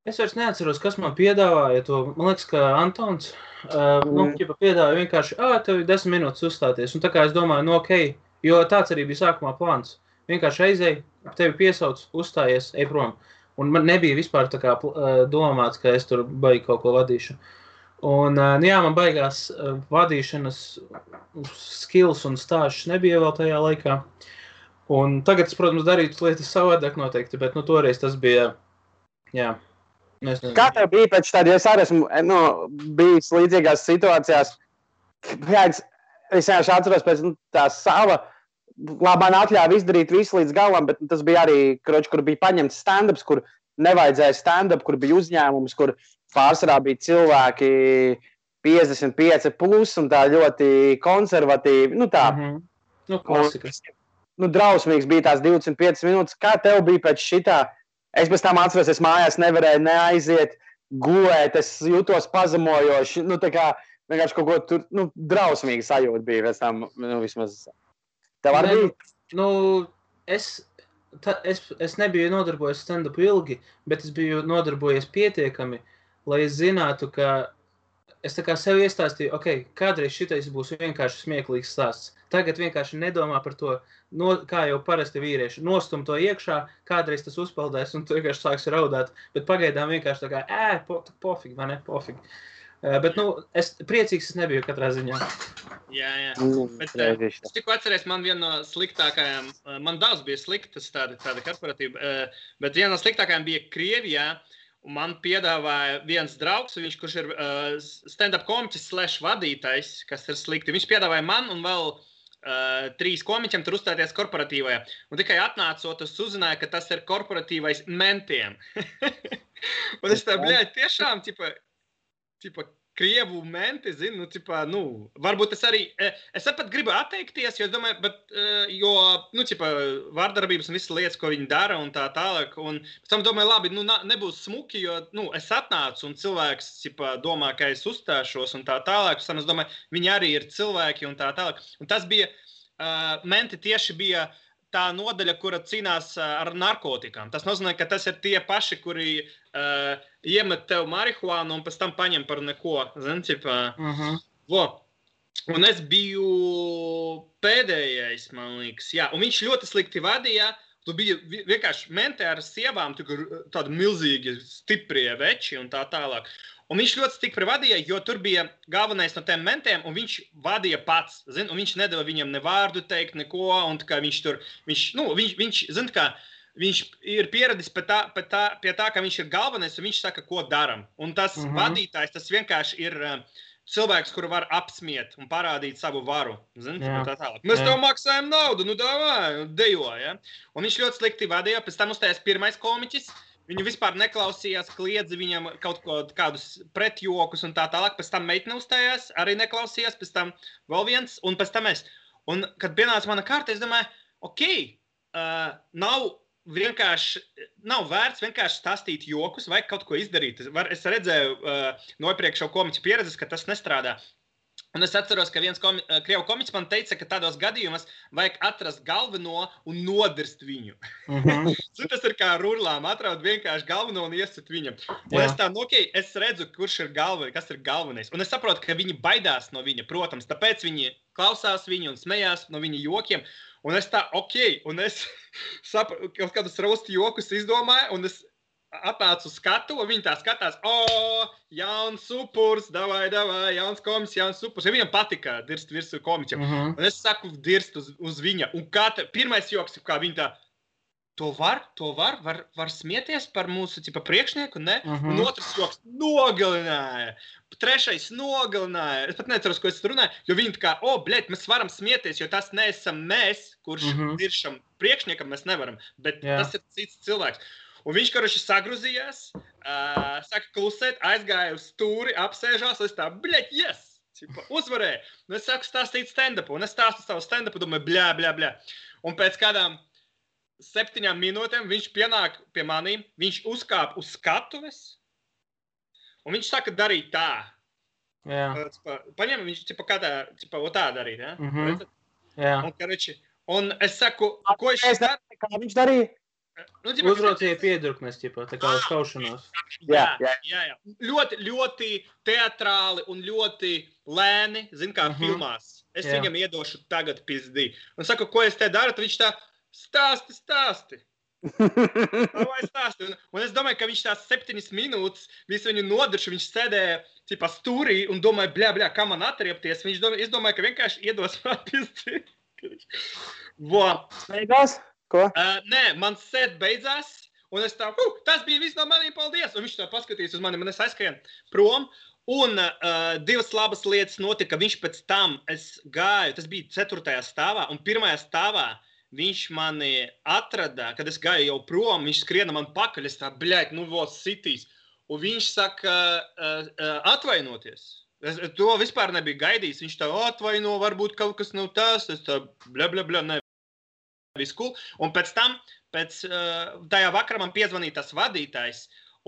Es vairs neatceros, kas man piedāvāja to. Man liekas, ka Antons piedāvāja vienkārši, tev ir 10 minūtes uzstāties. Un tā kā es domāju, ok, jo tāds arī bija sākumā plāns. Vienkārši aizēj, tevi piesauc, uzstājies, ej prom. Un man nebija vispār tā kā domāts, ka es tur baigi kaut ko vadīšu. Un, jā, man baigās vadīšanas skills un stāžas nebija vēl tajā laikā. Un tagad es, protams, darītu lietas savādāk noteikti, bet, toreiz tas bija, jā. Kā tev bija pēc tāda, jo es arī esmu bijis līdzīgās situācijās, es vienkārši atceros pēc tā sava, man atļāva izdarīt visu līdz galam, bet tas bija arī, kur bija paņemts stand-ups, kur nevajadzēja stand-up, kur bija uzņēmums, kur pārsvarā bija cilvēki 55 plus un tā ļoti konservatīvi, tā. Klasikas. Drausmīgs bija tās 25 minūtes. Kā tev bija pēc šitā? Es pēc tam atceros, es mājās nevarēju neaiziet, gulēt, es jūtos pazemojoši, tā kā vienkārši kaut ko tur, drausmīgi sajūta bija pēc tam, vismaz. Tev arī bija? Es nebiju nodarbojies stand-upu ilgi, bet es biju nodarbojies pietiekami, lai es zinātu, ka es tā kā sev iestāstīju, ok, kādreiz šitais būs vienkārši smieklīgs stāsts. Tagad vienkārši nedomā par to, kā jau parasti vīrieši, nostum to iekšā, kādreiz tas uzpeldēs un tu vienkārši sāks raudāt, bet pagaidām vienkārši tā kā, pofīgi, vai ne, pofīgi. Bet, es priecīgs es nebiju katrā ziņā. Jā. Bet es tikko atceries, man viena no sliktākajām, man daudz bija sliktas tāda korporatīva, bet viena no sliktākajām bija Krievijā, un man piedāvāja viens draugs, kurš ir stand-up komiķis / vadītājs, kas ir slikti. Viņš piedāvāja man un vēl 3 komiķiem tur uzstāties korporatīvajā. Un tikai atnācot, es uzzināju, ka tas ir korporatīvais mentiem. Un es tā, tiešām, tipa, krievu menti, zinu, varbūt es pat gribu atteikties, jo es domāju, vārdarbības un visas lietas, ko viņi dara un tā tālāk, un pēc tam domāju, labi, nebūs smuki, jo, es atnācu un cilvēks, domā, ka es uzstāšos un tā tālāk, pēc tam es domāju, viņi arī ir cilvēki un tā tālāk, un tas bija, menti tieši bija tā nodaļa, kura cīnās ar narkotikām. Tas nozīmē, ka tas ir tie paši, kuri iemet tev marihuānu un pēc tam paņem par neko. Zini, Un es biju pēdējais, man liekas. Jā. Un viņš ļoti slikti vadīja. Tu bija vienkārši mentē ar sievām, tādi milzīgi, stiprie veči un tā tālāk. Un viņš ļoti stipri vadīja, jo tur bija galvenais no tiem mentiem, un viņš vadīja pats, zin, un viņš nedeva viņam ne vārdu teikt, neko, un kā viņš tur, zin, kā, viņš ir pieradis pie tā, ka viņš ir galvenais, un viņš saka, ko daram. Un tas vadītājs, tas vienkārši ir cilvēks, kuru var apsmiet un parādīt savu varu. Jā. Tā tālāk. Mēs tev maksājam naudu, nu davai, dejo, ja? Un viņš ļoti slikti vadīja, pēc tam uzstājās pirmais komiķis, viņu vispār neklausījās, kliedza viņam kaut kādus pretjokus un tā tālāk, pēc tam meitne uzstājās, arī neklausījās, pēc tam vēl viens, un pēc tam es. Un, kad pienāca mana kārta, es domāju, nav vērts vienkārši stāstīt jokus vai kaut ko izdarīt. Es redzēju no iepriekšējo komiķu pieredzes, ka tas nestrādā. Un es atceros, ka viens krievu komiķis man teica, ka tādos gadījumos vajag atrast galveno un nodirst viņu. Tas ir kā rurlām, atraut vienkārši galveno un iesit viņam. Un es tā, es redzu, kas ir galvenais. Un es saprotu, ka viņi baidās no viņa, protams, tāpēc viņi klausās viņu un smējās no viņa jokiem. Un es tā, un es kaut kādus raustu jokus izdomāju, un es atnācu uz skatu, un viņi tā skatās, jauns supurs, davai, jauns komiķis, jauns supurs. Ja viņam patika dirst virsū komiķam. Un es saku dirst uz viņa. Un pirmais joks, kā viņi tā, to var smieties par mūsu priekšnieku, ne? Un otrs joks nogalināja. Trešais nogalināja. Es pat neceros, ko es runāju, jo viņi tā kā, mēs varam smieties, jo tas neesam mēs, kurš diršam priekšniekam, mēs nevaram. Bet tas ir cits cilvēks. Un viņš, karoši, sagruzījās, saka klusēt, aizgāja uz stūri, apsēžās, es tā, yes! Uzvarēju. Un es sāku stāstīt stand-upu, un es stāstu savu stand-upu, domāju, bļā. Un pēc kādām 7 minūtēm viņš pienāk pie manīm, viņš uzkāp uz skatuves, un viņš saka darīt tā. Jā. Paņem, viņš tā darīt, ja? Jā. Un, karoči, un es saku, ko kā viņš darīja? Uzraucīja piedurknes, tā kā uz kaušanos. Jā. Ļoti, ļoti teatrāli un ļoti lēni, kā filmās. Es viņam iedošu tagad pizdī. Un saku, ko es te daru, tad viņš tā, stāsti. Vai stāsti. Un es domāju, ka viņš tās 7 minūtes visu viņu nodiršu, viņš sēdēja stūrī un domāja, bļā, kā man atriepties. Es domāju, ka vienkārši iedos man pizdī. Beigās? Ko? Nē, man sēd beidzās, un es tā, tas bija viss no maniem, paldies. Un viņš tā paskatījās uz mani, un es aizskrien prom. Un 2 labas lietas notika. Viņš pēc tam, es gāju, tas bija 4. stāvā, un 1. stāvā viņš mani atrada, kad es gāju jau prom, viņš skriena man pakaļ, es tā, sitīs. Un viņš saka, atvainoties. Es to vispār nebiju gaidījis. Viņš tā, atvaino, varbūt kaut kas nav tas, es tā, bļa, ne. Viss cool. Un pēc tam, tajā vakarā man piezvanīja tas vadītājs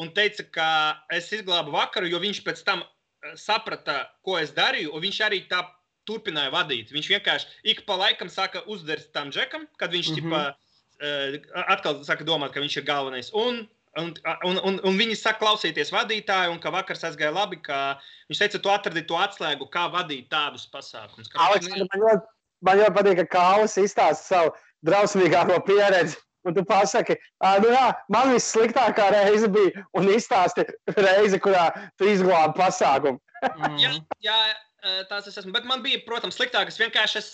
un teica, ka es izglābu vakaru, jo viņš pēc tam saprata, ko es darīju, un viņš arī tā turpināja vadīt. Viņš vienkārši ik pa laikam sāka uzdarīt tam džekam, kad viņš atkal sāka domāt, ka viņš ir galvenais. Un viņi saka klausīties vadītāju, un ka vakars aizgāja labi, ka viņš teica, tu atradi to atslēgu, kā vadīt tādus pasākumus. Man ļoti patīk, ka Kālis izstāsta savu drausmīgāko pieredzi, un tu pasaki, man vissliktākā reize bija, un izstāsti reizi, kurā tu izglābi pasākumu. Jā, tās es esmu, bet man bija, protams, sliktākas. Vienkārši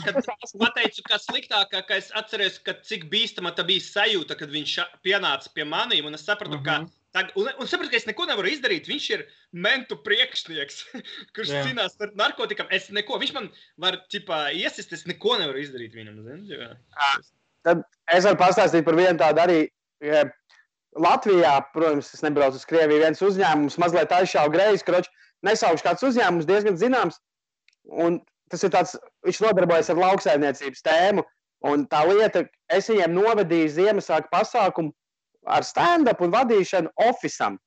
kad pateicu, ka sliktākā, ka es atceros, ka cik bīstama tā bija sajūta, kad viņš pienāca pie manīm, un es sapratu, ka un sapratu, ka es neko nevaru izdarīt. Viņš ir mentu priekšnieks, kurš cīnās par narkotikām. Viņš man var, iesist, es neko nevaru izdarīt viņam. Tad es varu pastāstīt par vienu tādu arī. Latvijā, protams, es nebraucu uz Krieviju, viens uzņēmums mazliet aizšāva greizi, kroči, nesaukšu kāds uzņēmums, diezgan zināms. Un tas ir tāds, viņš nodarbojas ar lauksaimniecības tēmu. Un tā lieta, es viņiem novedīju Ziemassvētku pasākumu ar stand-up un vadīšanu ofisam.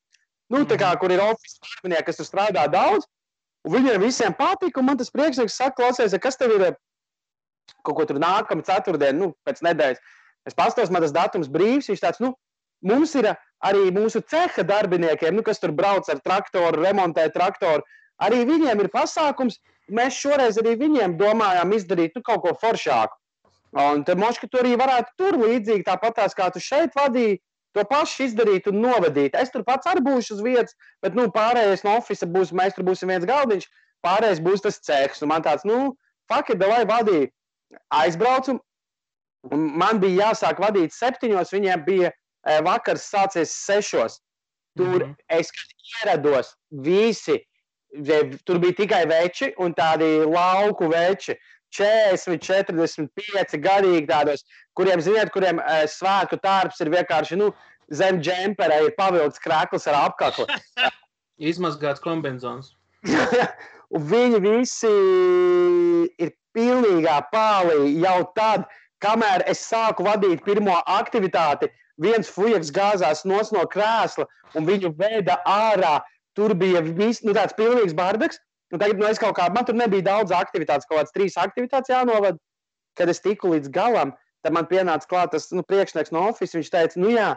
Tā kā, kur ir ofis darbinieki, kas tur strādā daudz, un viņiem visiem patika, un man tas priekšnieks saka, klausies, kas tev ir kaut ko tur nākama ceturtdiena, pēc nedēļas. Es pastos, man tas datums brīvs, viņš tāds, mums ir arī mūsu ceha darbiniekiem, kas tur brauc ar traktoru, remontē traktoru, arī viņiem ir pasākums, mēs šoreiz arī viņiem domājām izdarīt kaut ko foršāku. Un te moški tu arī varētu tur līdzīgi tāpatās, kā tu šeit vadīji, to pašu izdarīt un novadīt. Es tur pats arī būšu uz vietas, bet pārējais no ofisa būs, mēs tur būsim viens galdiņš, pārējais būs tas cehs. Un man tāds, fuck it, davai vadīju. Aizbraucu, un man bija jāsāk vadīt 7, viņiem bija vakars sācies 6. Tur es ieраdos, visi tur bija tikai veči un tādi lauku veči. 40, 45 gadīgi tādos, kuriem svētku tārps ir vienkārši, zem džempera ir pavilkts krekls ar apkaklu. Izmazgāts kombinzons. Un viņi visi ir pilnīgā pālī jau tad, kamēr es sāku vadīt pirmo aktivitāti, viens fujaks gāzās no krēsla un viņu veda ārā. Tur bija tāds pilnīgs bardaks. Un tagad es kaut kā, man tur nebija daudz aktivitātes, kaut kāds 3 aktivitātes jānovad. Kad es tiku līdz galam, tad man pienāca klāt tas priekšnieks no office. Viņš teica, jā,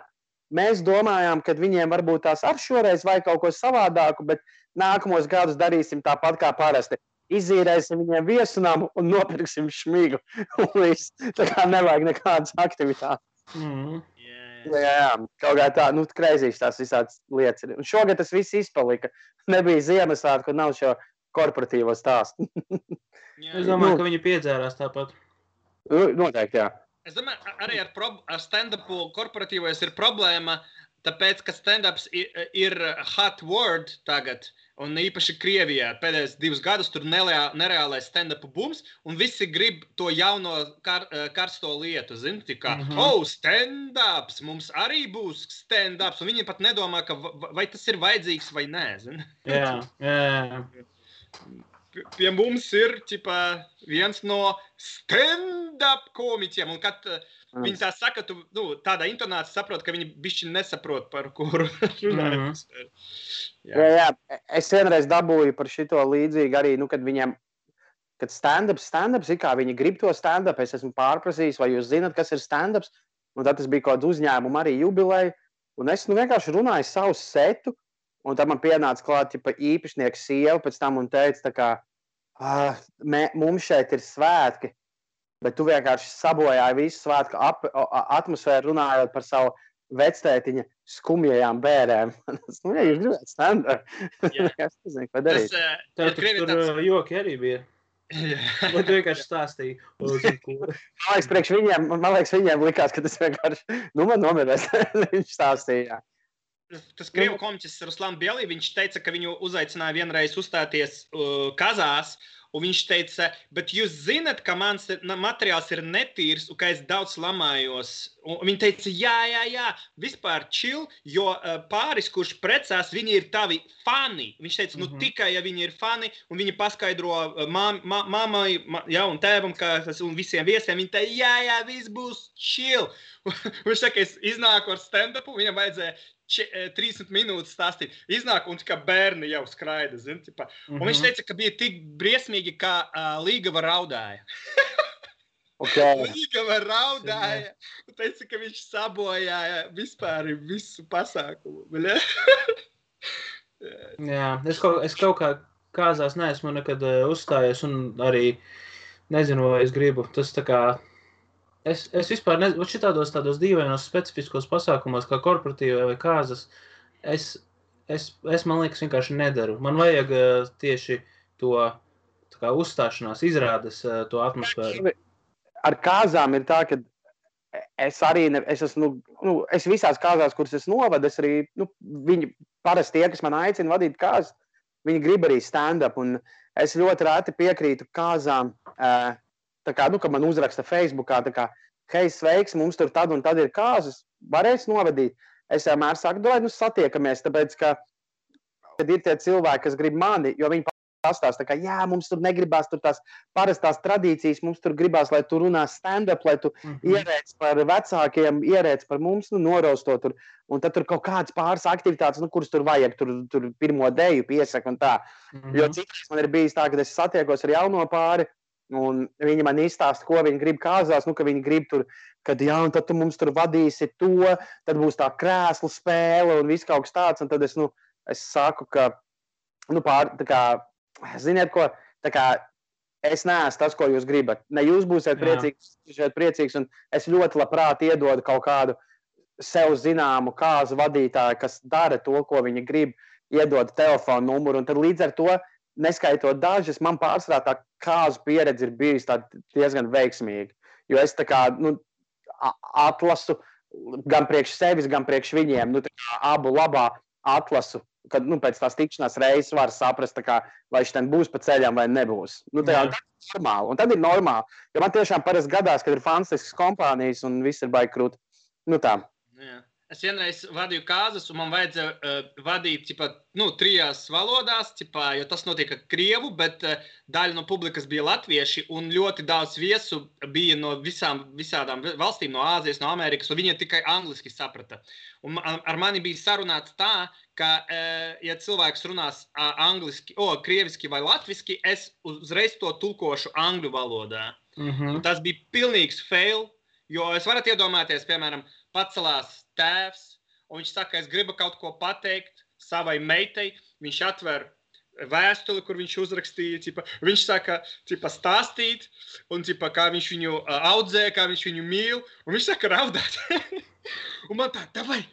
mēs domājām, ka viņiem varbūt tās ar šoreiz vai kaut ko savādāku, bet nākamos gadus darīsim tāpat kā parasti. Izīrēsim viņiem viesunamu un nopirksim šmigu. Tā kā nevajag nekādas aktivitātes. Jā, kaut kā tā, kreizīs tās visādas lietas. Un šogad tas viss izpalika. Nebija Ziemassvētku, kur nav šo korporatīvo stāstu. Es domāju, ka viņi piedzērās tāpat. Noteikti, jā. Es domāju, arī ar stand-upu korporatīvojas ir problēma, tāpēc, ka stand-ups ir hot word tagad, un īpaši Krievijā pēdējos 2 gadus tur nereālais stand-upu bums, un visi grib to jauno karsto lietu, zini, kā, stand-ups, mums arī būs stand-ups, un viņi pat nedomā, ka vai tas ir vajadzīgs vai nē, zini. Jā. Pie mums ir viens no stand-up komiķiem, un kad viņi tā saka, tu tādā intonācija saprot, ka viņi bišķi nesaprot, par kuru runājot. Jā, es vienreiz dabūju par šito līdzīgi arī, kad viņiem, kad stand-ups, ir kā viņi grib to stand-up, es esmu pārprasījis, vai jūs zināt, kas ir stand-ups, un tad tas bija kaut uzņēmumu arī jubileja, un es vienkārši runāju savu setu, un tad man pienāca klāt īpašnieks sieva pēc tam un teica, tā kā, mums šeit ir svētki, bet tu vienkārši sabojāji visu svētku atmosfēru runājot par savu vectētiņa skumjajām bērēm. Ja jūs gribētu stand-up, es nezinu, ko darīt. Tur joki arī bija. Vai tu vienkārši stāstīji? Man liekas, viņiem likās, ka tas vienkārši, man nomirēs, viņš stāstīja. Tas krievu komiķis Ruslāns Bielī, viņš teica, ka viņu uzaicināja vienreiz uzstāties Kazās, un viņš teica, bet jūs zinat, ka mans materiāls ir netīrs, un ka es daudz lamājos. Un viņi teica, jā, vispār chill, jo pāris, kurš precās, viņi ir tavi fani. Viņš teica, tikai, ja viņi ir fani, un viņi paskaidro mammai un tēvam, un visiem viesiem, viņi teica, jā, viss būs chill. Viņš saka, es iznāku ar stand-upu, viņam vajadzēja 30 minūtes stāstīt. Iznāk un kā bērni jau skraida, zin, tipā. Un viņš teica, ka bija tik briesmīgi, kā Līgava raudāja. Līgava raudāja. Un teica, ka viņš sabojāja vispār visu pasākumu. Jā, es kaut kā Kāzās neesmu nekad uzstājies un arī nezinu, vai es gribu. Tas tā kā... Es vispār nezinu, šitādos dīvainos specifiskos pasākumos, kā korporatīvā vai Kāzas, es man liekas, vienkārši nedaru. Man vajag tieši to tā kā uzstāšanās, izrādes to atmosfēru. Ar Kāzām ir tā, ka es visās Kāzās, kuras es novadu, es arī, viņi parasti tie, kas man aicina vadīt Kāzas, viņi grib arī stand-up, un es ļoti reti piekrītu Kāzām, tā kā, ka man uzraksta Facebookā, tā kā, hei, sveiks, mums tur tad un tad ir Kāzas, varēs novadīt. Es vienmēr saku, satiekamies, tāpēc, ka kad ir tie cilvēki, kas grib mani, jo viņi pastāsta, tā kā, jā, mums tur negribās tur tās parastās tradīcijas, mums tur gribās, lai tu runā stand-up, lai tu ierēc par vecākiem, ierēc par mums, norausto tur, un tad tur kaut kādas pāris aktivitātes, kuras tur vajag, tur pirmo deju piesaka un tā. Jo citreiz man ir bijis tā, ka es satiekos ar jauno pāri, un viņi man izstāsta, ko viņi grib Kāzās, ka viņi grib tur, kad jā, un tad tu mums tur vadīsi to, tad būs tā krēslu spēle un viss kaut kas tāds, un tad es saku, ka, tā kā, ziniet ko, tā kā es neesmu tas, ko jūs gribat. Ne jūs būsiet priecīgs, un es ļoti labprāt iedodu kaut kādu sev zināmu Kāzu vadītāju, kas dara to, ko viņi grib, iedod telefonu numuru, un tad līdz ar to, neskaitot dažas, man pārsvarā tā Kāzu pieredze ir bijusi diezgan veiksmīga. Jo es tā kā, atlasu gan priekš sevis, gan priekš viņiem, tā kā abu labā atlasu kad pēc tās tikšanās reizes var saprast, kā, vai viņš ten būs pa ceļām vai nebūs. Tā ir normāli. Un tad ir normāli. Jo man tiešām parasti gadās, kad ir fantastiskas kompānijas un viss ir baigi krūti. Tā. Jā. Es vienreiz vadīju kāzas, un man vajadzēja vadīt 3 valodās, jo tas notika krievu, bet daļa no publikas bija latvieši, un ļoti daudz viesu bija no visādām valstīm, no Āzijas, no Amerikas, un viņi tikai angliski saprata. Un ar mani bija sarunāts tā, ka, ja cilvēks runās krieviski vai latviski, es uzreiz to tulkošu angļu valodā. Tas bija pilnīgs fail, jo es varat iedomāties, piemēram, pacelās tēvs, un viņš saka, es gribu kaut ko pateikt savai meitai, viņš atver vēstuli, kur viņš uzrakstīja, viņš saka, stāstīt, un kā viņš viņu audzē, kā viņš viņu mīl, un viņš saka raudāt. Un man tā, davai,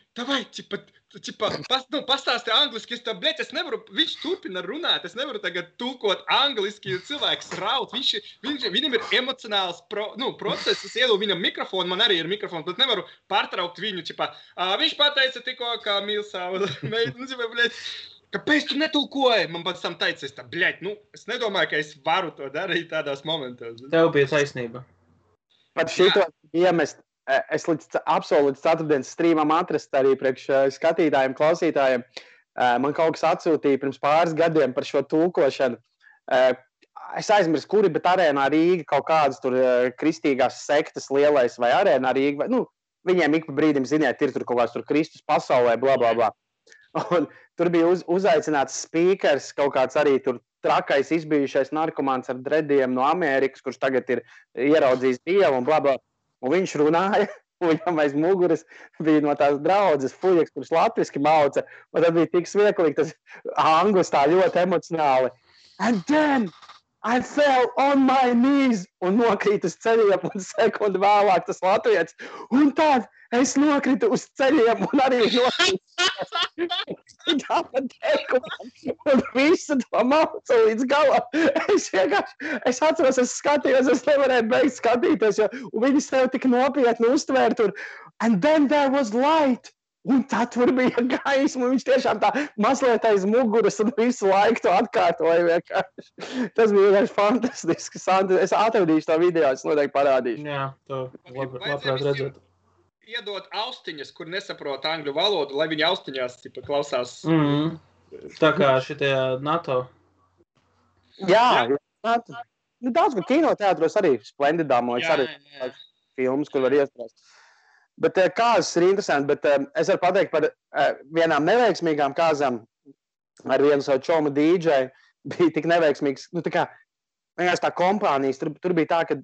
pastāsti angliski, es nevaru, viņš turpina runāt, es nevaru tagad tulkot angliski, jo cilvēks raud, viņam ir emocionāls process, es ielu viņam mikrofonu, man arī ir mikrofons, bet nevaru pārtraukt viņu, viņš pateica tikko, kā mīl savu meitu, kāpēc tu netulkoji? Man pēc tam teica, es nedomāju, ka es varu to darīt tādās momentos. Tev bija taisnība. Pat šito iemest. Es absolūti ceturtdienas strīmam atrast arī priekš skatītājiem, klausītājiem. Man kaut kas atsūtīja pirms pāris gadiem par šo tulkošanu. Es aizmirsu, kuri, bet Arēnā Rīga kaut kādas tur kristīgās sektas lielais vai Arēnā Rīga. Viņiem ik pa brīdim, ziniet, ir tur kaut kāds tur Kristus pasaulē, bla, bla, bla. Un tur bija uzaicināts spīkers, kaut kāds arī tur trakais izbijušais narkomāns ar drediem no Amerikas, kurš tagad ir ieraudzījis Dievu un bla, bla. Un viņš runāja, un viņam aiz muguras bija no tās draudzes fuļieks, kurš latviski mauca, un tad bija tik smieklīgi, tas anglis tā ļoti emocionāli. And then I fell on my knees, un nokrīt uz ceļiem, un sekundi vēlāk tas latvietis. Un tad es nokritu uz ceļiem, un arī nokrītu. Un visu to mauca līdz galam. Es atceros, es skatījos, es nevarēju beigt skatīties, jo viņi sev tik nopietni uztvēra tur. And then there was light. Un tad tur bija gaisma, un viņš tiešām tā mazliet aiz muguras un visu laiku to atkārtoja vienkārši. Tas bija vienkārši fantastiski. Es atradīšu to video, es noteikti parādīšu. Jā, to labprāt redzēt. Iedot austiņas, kur nesaprot angļu valodu, lai viņi austiņās klausās. Tā kā šitie NATO. Jā. Daudz, ka kinoteātros arī Splendidāmojas arī filmas, kur var iestrāst. Bet kāzas ir interesanti, bet es varu pateikt par vienām neveiksmīgām kāzām ar vienu savu čomu DJ bija tik neveiksmīgs. Tā kā vienkārši tā kompānijas, tur bija tā, ka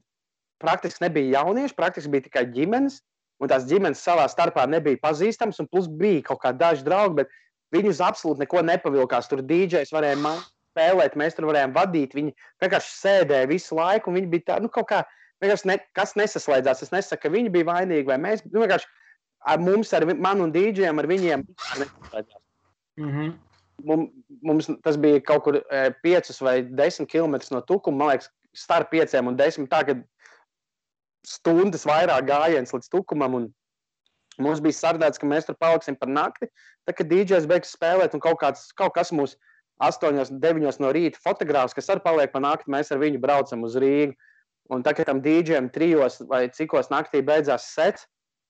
praktiski nebija jaunieši, praktiski bija tikai ģimenes, un tās ģimenes savā starpā nebija pazīstams, un plus bija kaut kā daži draugi, bet viņi uz absolūti neko nepavilkās. Tur DJs varēja spēlēt, mēs tur varējām vadīt, viņi vienkārši sēdēja visu laiku, un viņi bija tā, kaut kā, kas nesaslēdzās. Es nesaku, ka viņi bija vainīgi, vai mēs, vienkārši ar mums, ar manu un DJiem, ar viņiem nesaslēdzās. Mums tas bija kaut kur 5 vai 10 kilometrus no Tukuma, man liekas, starp 5 un 10, tā, kad stundas vairāk gājiens līdz Tukumam, un mums bija sardēts, ka mēs tur paliksim par nakti, tā, kad DJs beigs spēlēt, un kaut kas mūs 8, 9 no rīta fotogrāfs, kas arī paliek par nakti, mēs ar viņu braucam uz Rīgu. Un tā, kad tam DJam 3 vai cikos naktī beidzās sets,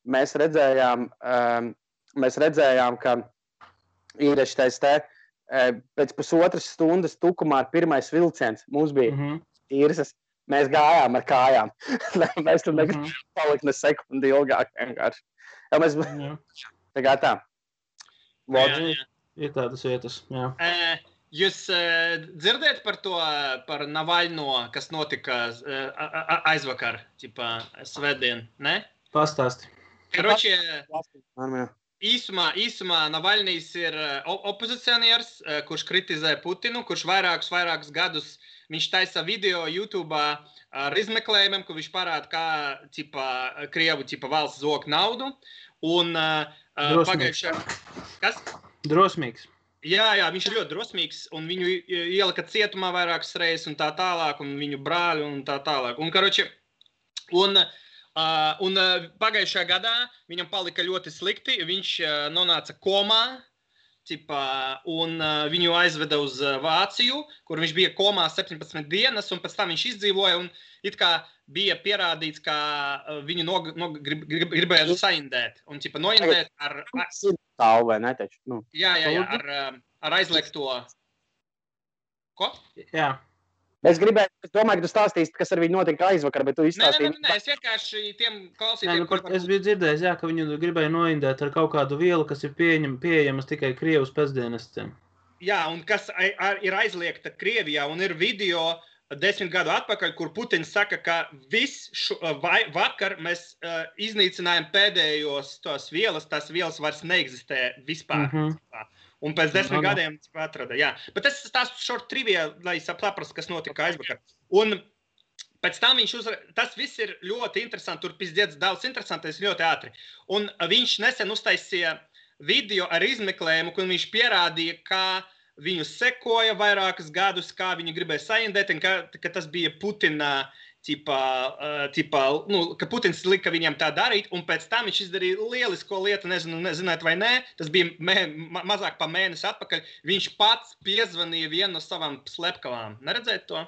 mēs redzējām, ka ir šitais te pēc pusotras stundas Tukumā ir pirmais vilciens. Mums bija īrsas. Mēs gājām ar kājām. Mēs tur negribam palikt ne sekundi ilgāk vienkārši. Tā. Ir tādas vietas, jā. Jūs dzirdēt par to, par Navaļno, kas notika aizvakar, svētdien, ne? Pastāsti. Karoči, īsumā Navaļnijs ir opozicionieris, kurš kritizē Putinu, kurš vairākus gadus viņš taisa video YouTube'ā ar izmeklējumiem, kur viņš parāda, kā Krievu valsts zog naudu. Un pagājušā... Kas? Drosmīgs. Jā, viņš ir ļoti drosmīgs, un viņu ielika cietumā vairākas reizes, un tā tālāk, un viņu brāļi, un tā tālāk. Un pagājušajā gadā viņam palika ļoti slikti, viņš nonāca komā, un viņu aizveda uz Vāciju, kur viņš bija komā 17 dienas, un pēc tam viņš izdzīvoja, un it kā bija pierādīts, ka viņu gribēja saindēt, un noindēt ar... Tālu vai ne, taču? Nu. Jā, ar aizliegto... Ko? Jā. Es domāju, ka tu stāstīsi, kas ar viņu notika aizvakar, bet tu izstāstīji. Nē, es vienkārši tiem klausītiem... Es biju dzirdējis, ka viņu gribēja noindēt ar kaut kādu vielu, kas ir pieejamas tikai Krievijas pēcdienestiem. Jā, un kas ir aizliegta Krievijā, un ir video 10 gadu atpakaļ, kur Putins saka, ka vakar mēs iznīcinājām pēdējos tās vielas vairs neeksistē vispār. Un pēc 10 gadiem atrada, jā. Bet es stāstu short trivia, lai saprastu, kas notika aizvakar. Un pēc tam tas viss ir ļoti interesanti, tur pizdiec daudz interesantais ļoti ātri. Un viņš nesen uztaisīja video ar izmeklējumu, kur viņš pierādīja, ka viņu sekoja vairākus gadus, kā viņi gribēja saindēt, un ka tas bija Putina ka Putins lika viņam tā darīt, un pēc tam viņš izdarīja lielisko lietu, nezināt vai nē, tas bija mazāk pa mēnesi atpakaļ, viņš pats piezvanīja vienu no savām slepkavām. Neredzēt to?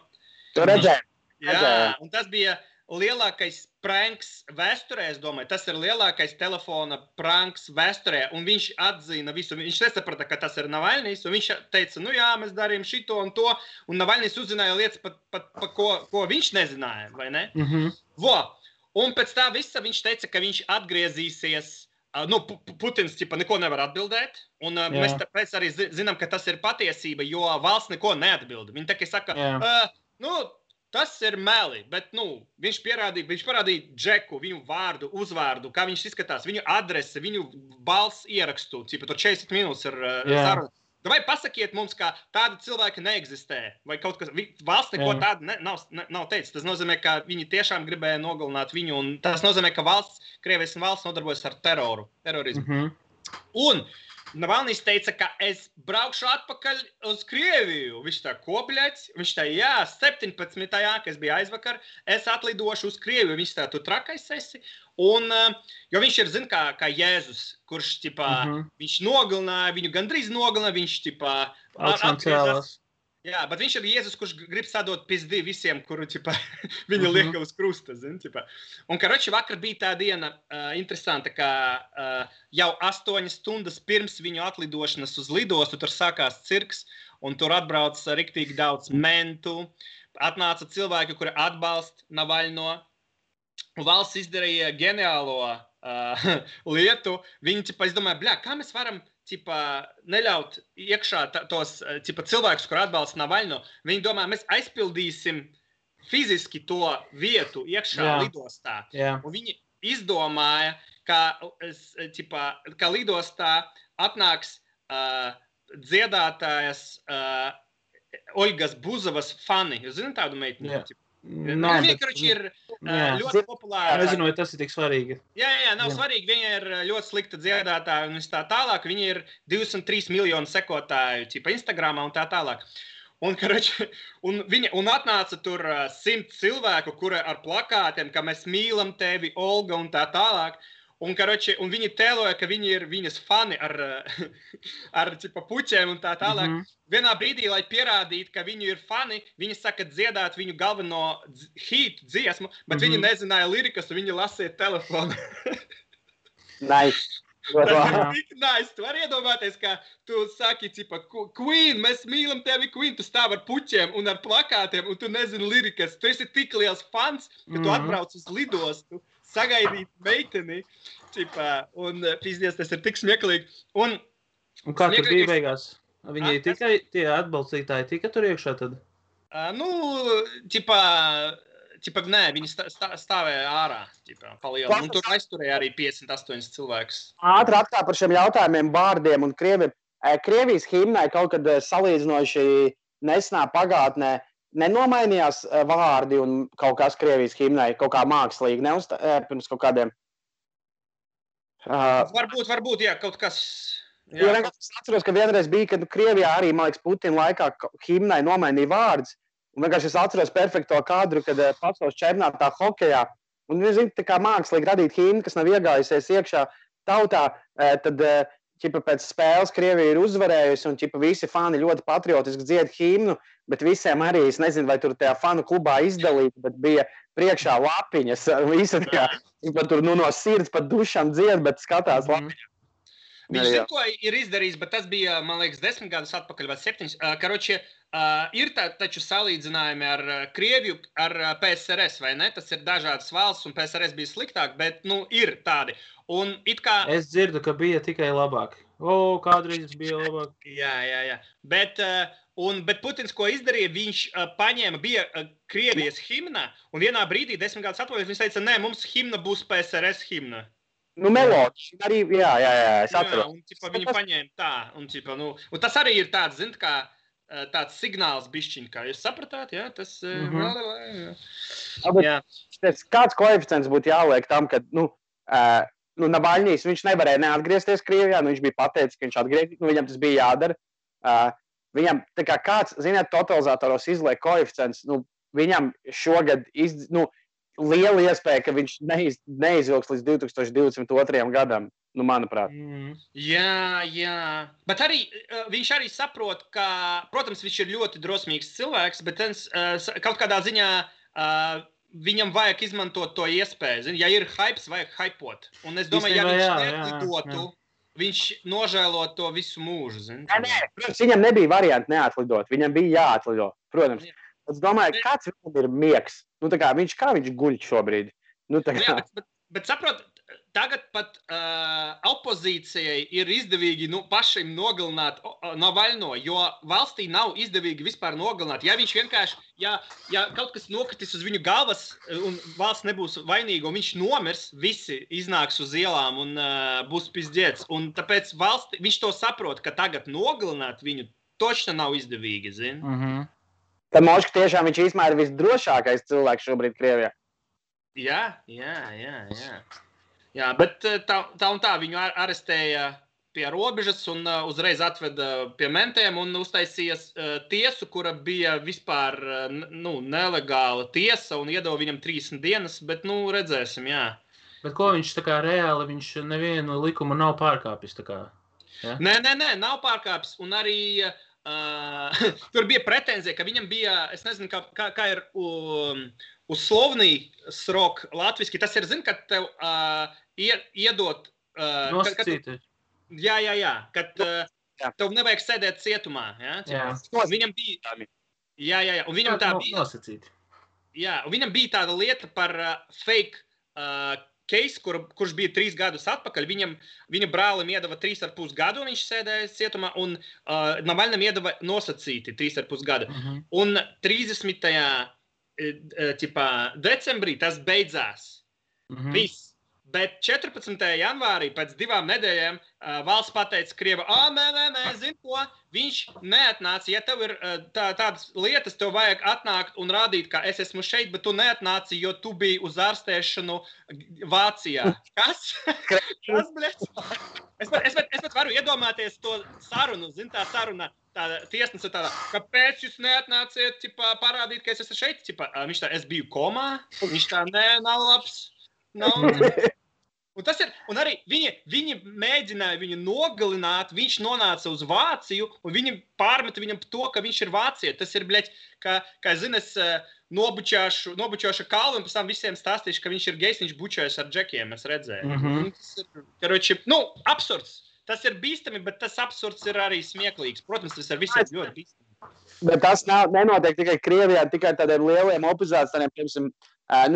Tu redzēji? Jā, un tas bija lielākais pranks vēsturē, es domāju, tas ir lielākais telefona pranks vēsturē, un viņš atzina visu, viņš nesaprata, ka tas ir Navalnijs, un viņš teica, nu jā, mēs darījām šito un to, un Navalnijs uzzināja lietas, ko viņš nezināja, vai ne? Un pēc tā visa viņš teica, ka viņš atgriezīsies, Putins neko nevar atbildēt, un mēs tāpēc arī zinām, ka tas ir patiesība, jo valsts neko neatbilda. Viņi tikai saka, tas ir meli, bet viņš parādīja Džeku, viņu vārdu, uzvārdu, kā viņš izskatās, viņu adresi, viņu balss ierakstu, tur 40 minūtes ir saruna. Vai pasakiet mums, ka tāda cilvēka neeksistē, vai kaut kas, valsts neko tādu nav teicis. Tas nozīmē, ka viņi tiešām gribēja nogalināt viņu, un tas nozīmē, ka Krievijas valsts nodarbojas ar terorismu. Un Navalnijs teica, ka es braukšu atpakaļ uz Krieviju. Viņš tā, ko, bļaļ? Viņš tā, 17. Kas bija aizvakar, es atlidošu uz Krieviju. Viņš tā, tu trakais esi. Un, jo viņš ir, kā Jēzus, kurš, viņš nogalināja, viņu gandrīz nogalināja, viņš, atgriezās. Jā, bet viņš ir Jēzus, kurš grib sadot pizdi visiem, kuru, viņu lieka uz krusta, Un, vakar bija tā diena interesanta, ka jau 8 stundas pirms viņu atlidošanas uz lidostu, tur sākās cirks, un tur atbrauc riktīgi daudz mentu, atnāca cilvēki, kuri atbalsta Navalno, un valsts izdarīja ģeniālo lietu. Viņi, es domāju, kā mēs varam neļaut iekšā tos cilvēkus, kur atbalsta Navalno. Viņi domā, mēs aizpildīsim fiziski to vietu iekšā lidostā. Un viņi izdomāja, ka lidostā atnāks dziedātājas Olgas Buzovas fani. Jūs zināt tādu meiteni? Viņa vienkārši ir ļoti populāra. Nezinu, vai tas ir tik svarīgi. Jā, nav svarīgi. Viņa ir ļoti slikta dziedātāja un tā tālāk. Viņa ir 203 miljonu sekotāju Instagramā un tā tālāk. Un atnāca tur 100 cilvēku, kuri ar plakātiem, ka mēs mīlam tevi, Olga, un tā tālāk. Un viņi tēloja, ka viņi ir viņas fani ar puķiem un tā tālāk. Vienā brīdī, lai pierādītu, ka viņi ir fani, viņi saka dziedāt viņu galveno hītu dziesmu, bet viņi nezināja lirikas, un viņi lasīja telefonu. Nice. Tas ir tik nice. Tu vari iedomāties, ka tu saki, Queen, mēs mīlam tevi, Queen, tu stāv ar puķiem un ar plakātiem, un tu nezini lirikas. Tu esi tik liels fans, ka tu atbrauc uz lidostu, sagaidīt meiteni, un pizdies, tas ir tik smieklīgi. Un kā tur bija beigās? Viņi tikai tie atbalstītāji tika tur iekšā tad? Nē, viņi stāvēja ārā, palielināja. Un tur aizturēja arī 58 cilvēkus. Ātri atkal par šiem jautājumiem, bārdiem un Krievijas himnai kaut kad salīdzinoši nesenā pagātnē nenomainījās vārdi un kaut kas Krievijas himnai, kaut kā mākslīgi, pirms kaut kādiem. Varbūt, jā, kaut kas. Jā. Es atceros, ka vienreiz bija, kad Krievijā arī, man liekas, Putina laikā himnai nomainīja vārdus. Un vienkārši es atceros perfekto kadru, kad pasaules čempionātā hokejā. Un, tā kā mākslīgi radīt himnu, kas nav iegājusies iekšā tautā, tad ķipa pēc spēles Krievija ir uzvarējusi, un ķipa visi fani ļoti patriotiski dzied himnu, bet visiem arī, es nezinu, vai tur tajā fanu klubā izdalīt, bet bija priekšā lapiņas, visi tur no sirds pat dušām dzied, bet skatās lapiņas. Viņš zina, ko ir izdarījis, bet tas bija, man liekas, 10 gadus atpakaļ vai 7. Karoči, ir taču salīdzinājumi ar Krieviju, ar PSRS, vai ne? Tas ir dažādas valsts, un PSRS bija sliktāk, bet, ir tādi. Un it kā... Es dzirdu, ka bija tikai labāk. Kādreiz bija labāk. Jā. Bet Putins, ko izdarīja, viņš paņēma, bija Krievijas himna, un vienā brīdī, 10 gadus atpakaļ, viņš teica, nē, mums himna būs PSRS himna. Melodija arī, jā, es atceros. Un viņi paņēma tā, un tas arī ir tāds, zin, kā tāds signāls bišķiņ, kā jūs sapratāt, jā, tas... Kāds koeficients būtu jāliek tam, ka, Nabaļņīs, viņš nevarēja neatgriezties Krievijā, viņš bija pateicis, ka viņš atgriezīs, viņam tas bija jādara. Viņam, tā kā kāds, ziniet, totalizatoros izliek koeficients, viņam šogad liela iespēja, ka viņš neizvilks līdz 2022. gadam, manuprāt. Jā. Bet arī viņš arī saprot, ka, protams, viņš ir ļoti drosmīgs cilvēks, bet kaut kādā ziņā viņam vajag izmantot to iespēju. Zin? Ja ir hypes, vajag hypot. Un es domāju, ja viņš neatlidotu, viņš nožēlot to visu mūžu. Zin? Nē, protams, viņam nebija varianti neatlidot. Viņam bija jāatlido, protams. Es domāju, kāds viņam ir miegs. Kā viņš guļ šobrīd. Bet saprot, tagad pat opozīcijai ir izdevīgi pašiem nogalināt Navaļno, jo valstī nav izdevīgi vispār nogalināt. Ja viņš vienkārši, ja kaut kas nokritīs uz viņu galvas un valsts nebūs vainīga un viņš nomirs, visi iznāks uz ielām un būs pizdziets. Un tāpēc viņš to saprot, ka tagad nogalināt viņu točna nav izdevīgi, zin? Tad Moška tiešām viņš īstenībā ir visdrošākais cilvēks šobrīd Krievijā. Jā, bet tā un tā viņu arestēja pie robežas un uzreiz atveda pie mentēm un uztaisīja tiesu, kura bija vispār nelegāla tiesa un iedeva viņam 30 dienas, bet redzēsim, jā. Bet ko viņš tā kā reāli, viņš nevienu likumu nav pārkāpis tā kā? Ja? Nē, nav pārkāpis un arī... tur bija pretenzija, ka viņam bija, es nezinu, kā ir uz slovnī srok latviski. Tas ir, zin, kad tev iedot... Nosacīti. Jā, kad tev nevajag sēdēt cietumā. Ja? Viņam bija... Jā, un viņam tā bija... Nosacīti. Jā, un viņam bija tāda lieta par fake case, kurš bija 3 gadus atpakaļ, viņa brālim iedeva 3,5 gadu, viņš sēdēja cietumā, un Navaļnam iedeva nosacīti 3,5 gadu. Un 30. Decembrī tas beidzās. Viss. Bet 14. janvārī, pēc 2 nedēļām, valsts pateica Krieva, nē, zin ko, viņš neatnāca. Ja tev ir tādas lietas, tev vajag atnākt un rādīt, ka es esmu šeit, bet tu neatnāci, jo tu biji uz ārstēšanu Vācijā. Kas? Kas, bļēc? Es pat varu iedomāties to sarunu, zin, tā saruna, tā tiesnesa tāda, kāpēc jūs neatnāciet, parādīt, ka es esmu šeit? Viņš tā, es biju komā, viņš tā, nē, nav labs. Un arī viņi mēģināja viņu nogalināt, viņš nonāca uz Vāciju, un viņi pārmeta viņam to, ka viņš ir Vācija. Tas ir, bļeķ, kā zini, es nobučošu kalvu, un pēc tam visiem stāstīšu, ka viņš ir gejs, viņš bučojas ar džekiem, es redzēju. Tas ir, absurds. Tas ir bīstami, bet tas absurds ir arī smieklīgs. Protams, tas ir visiem ļoti bīstami. Bet tas nenotiek tikai Krievijā, tikai tādiem lieliem opozīcijiem, piemēram,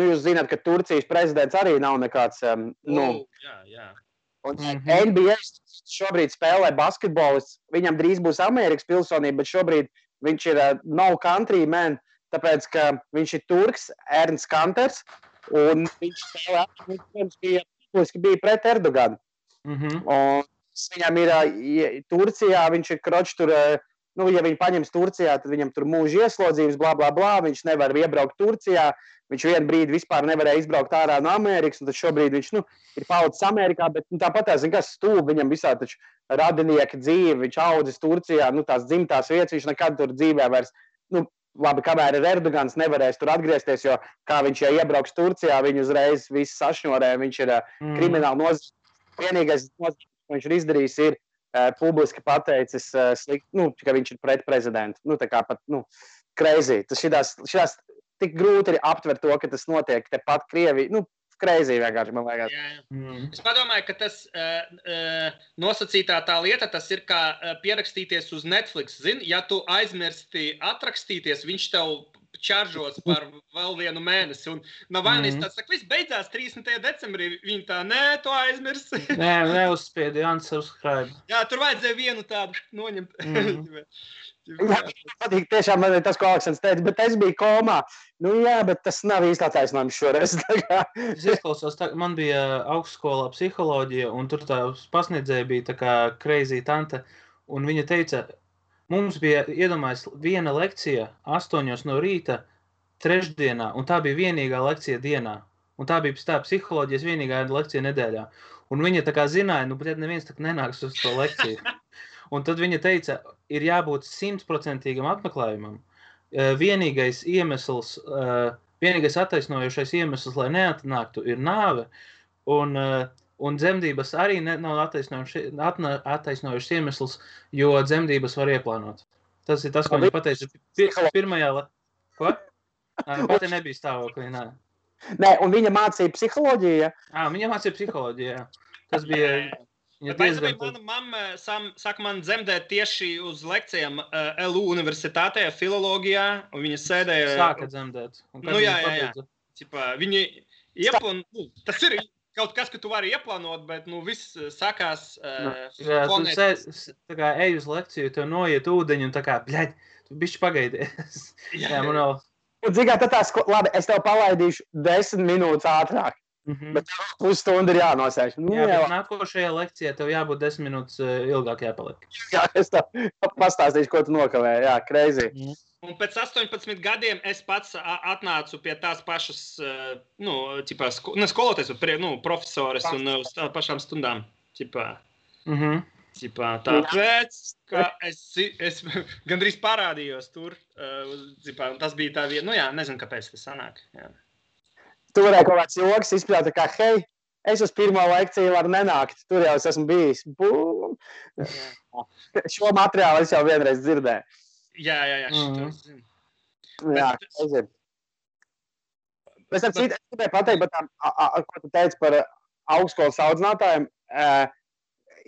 jūs zināt, ka Turcijas prezidents arī nav nekāds, Jā. Un NBA šobrīd spēlē basketbolists, viņam drīz būs Amerikas pilsonība, bet šobrīd viņš ir no country man, tāpēc, ka viņš ir turks, Ernsts Kanters, un viņš spēlē, viņš bija pret Erdoganu. Un viņam ir Turcijā, viņš ir kroč tur, ja viņi paņems Turcijā, tad viņam tur mūža ieslodzījums, blā, viņš nevar iebraukt Turcijā, viņš vienu brīdi vispār nevarēja izbraukt ārā no Amerikas, un tad šobrīd viņš, ir palicis Amerikā, bet tāpat kas stūb, viņam visā taču radinieka dzīve, viņš audzis Turcijā, tās dzimtās vietas, viņš nekad tur dzīvē vairs, labi, kamēr ir Erdogans, nevarēs tur atgriezties, jo kā viņš, ja iebrauks Turcijā, viņu uzreiz visu sašņorē, viņš ir krimināli nozīmē. Vienīgais nozīmē, ko viņš ir izdarījis, ir publiski pateicis, ka viņš ir pret prezidentu. Tā kā pat, crazy. Tas šitās tik grūti ir aptvert to, ka tas notiek tepat Krievijā. Crazy vienkārši, man liekas. Es padomāju, ka tas nosacītā tā lieta, tas ir kā pierakstīties uz Netflix. Zini, ja tu aizmirsti atrakstīties, viņš tev čaržos par vēl vienu mēnesi. Un Navalnijs tāds saka, viss beidzās 30. decembrī. Viņi tā, nē, tu aizmirsti. Nē, neuzspiedi, unsubscribe. Jā, tur vajadzēja vienu tādu noņemt. Patīk, tiešām man ir tas, ko Aleksandrs teica, bet es biju komā. Jā, bet tas nav īsti attaisnojums šoreiz. Es izklausos, man bija augstskolā psiholoģija, un tur tā pasniedzēja bija tā kā crazy tante, un viņa teica, mums bija iedomājies viena lekcija 8 no rīta trešdienā, un tā bija vienīgā lekcija dienā. Un tā bija tā psiholoģijas vienīgā lekcija nedēļā. Un viņa tā kā zināja, bet neviens tā nenāks uz to lekciju. Un tad viņa teica, ir jābūt 100% apmeklējumam. Vienīgais attaisnojošais iemesls, lai neatnāktu, ir nāve. Un dzemdības arī nav attaisnojošs iemesls, jo dzemdības var ieplānot. Tas ir tas, ko viņa pateica pirmajā. Ko? Pati nebija stāvoklī, nē. Nē, un viņa mācīja psiholoģiju? Viņa mācīja psiholoģiju, jā. Tas bija... Mana mamma saka man dzemdēt tieši uz lekcijām LU universitātē, filologijā, un viņa sēdēja... Sāka dzemdēt. Jā. Viņi tas ir kaut kas, ka tu vari ieplānot, bet viss sākās... Tu ej uz lekciju, tev noiet ūdeņu un tā kā, bļaļ, tu bišķi pagaidies. Jā, man vēl... Un dzigā, labi, es tev palaidīšu 10 minūtes ātrāk. Bet pusstundu ir jānosēž. Bet nākošajā lekcijā tev jābūt 10 minūtes ilgāk jāpaliek. Jā, es tev pastāstīšu, ko tu nokavēji. Jā, crazy. Un pēc 18 gadiem es pats atnācu pie tās pašas, skolotājs, profesores un uz tām pašām stundām. Tāpēc, ka es gandrīz parādījos tur. Tas bija tā vieta, nezinu, kāpēc tas sanāk. Jā. Tu varēji kaut kāds joks izpļaut, kā, hei, es uz pirmo lekciju varu nenākt, tur jau es esmu bijis. Bum! Šo materiālu es jau vienreiz dzirdēju. Jā, šito es zinu. Jā, es zinu. Es gribēju pateikt, ko tu teici par augstskolas audzinātājiem.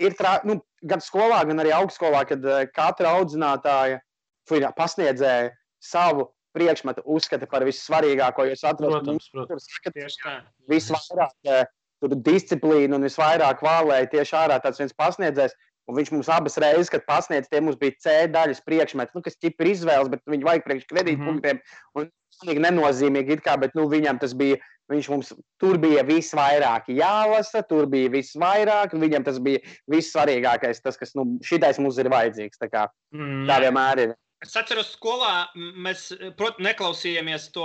Ir gan skolā, gan arī augstskolā, kad katra audzinātāja pasniedzēja savu priekšmetu uzskata par vissvarīgāko, jo es atrodu, visvairāk disciplīnu un visvairāk vālēja tieši ārā tāds viens pasniedzējs, un viņš mums abas reizes, kad pasniedz, tie mums bija C daļas priekšmeti, kas ķip ir izvēles, bet viņi vajag priekš kredītpunktiem, un nenozīmīgi it kā, bet viņam tas bija, tur bija visvairāk jālasa, tur bija visvairāk, un viņam tas bija vissvarīgākais, tas, kas, šitais mums ir vajadzīgs, tā vienmēr ir. Es atceros, skolā mēs, neklausījāmies to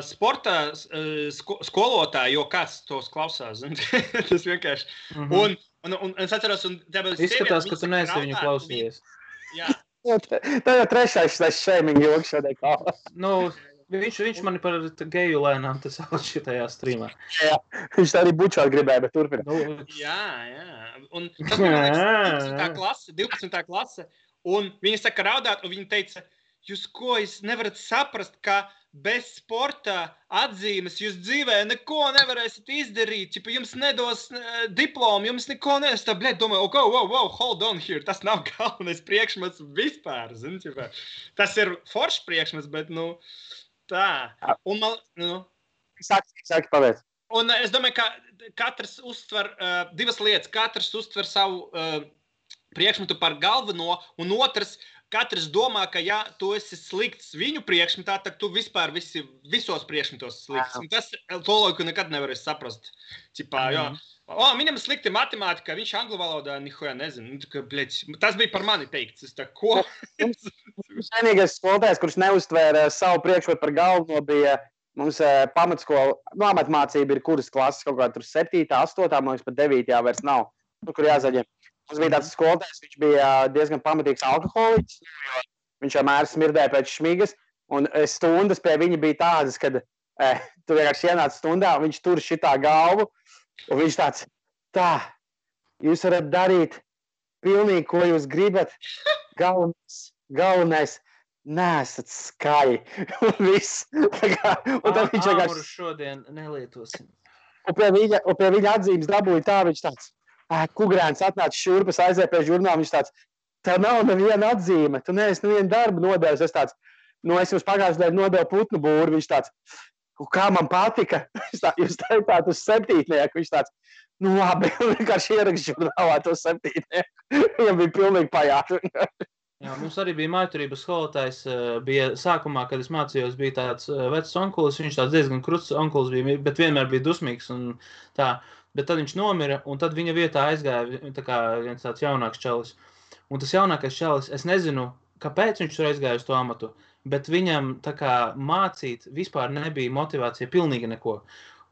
sporta skolotāju, jo kāds tos klausās. Tas vienkārši. Un es atceros, un izskatās, ka tu neesi viņu klausījies. Jā. Tā jau trešais shaming joks šodien kā. Viņš mani par geju lēnām tas sauc šitajā streamā. Jā, viņš tā arī bučot gribēja, bet turpina. Jā. Un tas bija 12. klase. Un viņi saka raudāt, un viņi teica, jūs nevarat saprast, ka bez sporta atzīmes jūs dzīvē neko nevarēsiet izdarīt. Jums nedos diplomu, jums neko nedos. Tā, domāju, wow, hold on here. Tas nav galvenais priekšmets vispār. Tas ir foršs priekšmets, bet, tā. Un Sāki pavēc. Un es domāju, ka katrs uztver divas lietas. Katrs uztver savu priekšmetu par galveno, un otrs, katrs domā, ka ja tu esi slikts viņu priekšmetā, tad tu vispār visos priekšmetos slikts. Un tas loģiku nekad nevarēs saprast. Viņam slikti matemātika, viņš angļu valodā nihoja nezinu. Tas bija par mani teikts. Es tā, ko? Vienīgais skolotājs, kurš neuztvēra savu priekšmetu par galveno, bija mums pamatskola, amatmācība ir kuras klases, kaut kā tur 7, 8, man liekas, pat 9 vairs nav, kur jāzaļiem. Mums bija tāds skolotājs, viņš bija diezgan pamatīgs alkoholiķis, jo viņš vienmēr smirdēja pēc šmigas, un stundas pie viņa bija tādas, kad tu vienkārši ienāc stundā, un viņš tur šitā galvu, un viņš tāds, jūs varat darīt pilnīgi, ko jūs gribat. Galvenais nesat skaļi. Un viss. Un tad viņš Āmuru šodien nelietosim. Un pie viņa atzīmes dabūja tā, viņš tāds, Kugrēns atnāca šurpas, aizēja pie žurnāla, viņš tāds, tev nav neviena atzīme, tu neesi nevienu darbu nodevis. Es tāds, es jums pagājušajā dienā nodevu putnu būru, viņš tāds, kā man patika, jūs teicāt uz 7. Viņš tāds, labi, vienkārši ierakst žurnālā to 7. Viņam bija pilnīgi pajāši. Jā, mums arī bija mājturības skolotājs, bija sākumā, kad es mācījos, bija tāds vecs onkulis, viņš tāds diezgan krusts onkulis bija, bet vienmēr bija dusmīgs un tā, bet tad viņš nomira, un tad viņa vietā aizgāja tā kā viens tāds jaunāks čalis. Un tas jaunākais čalis, es nezinu, kāpēc viņš tur aizgāja uz to amatu, bet viņam tā kā mācīt vispār nebija motivācija pilnīgi neko.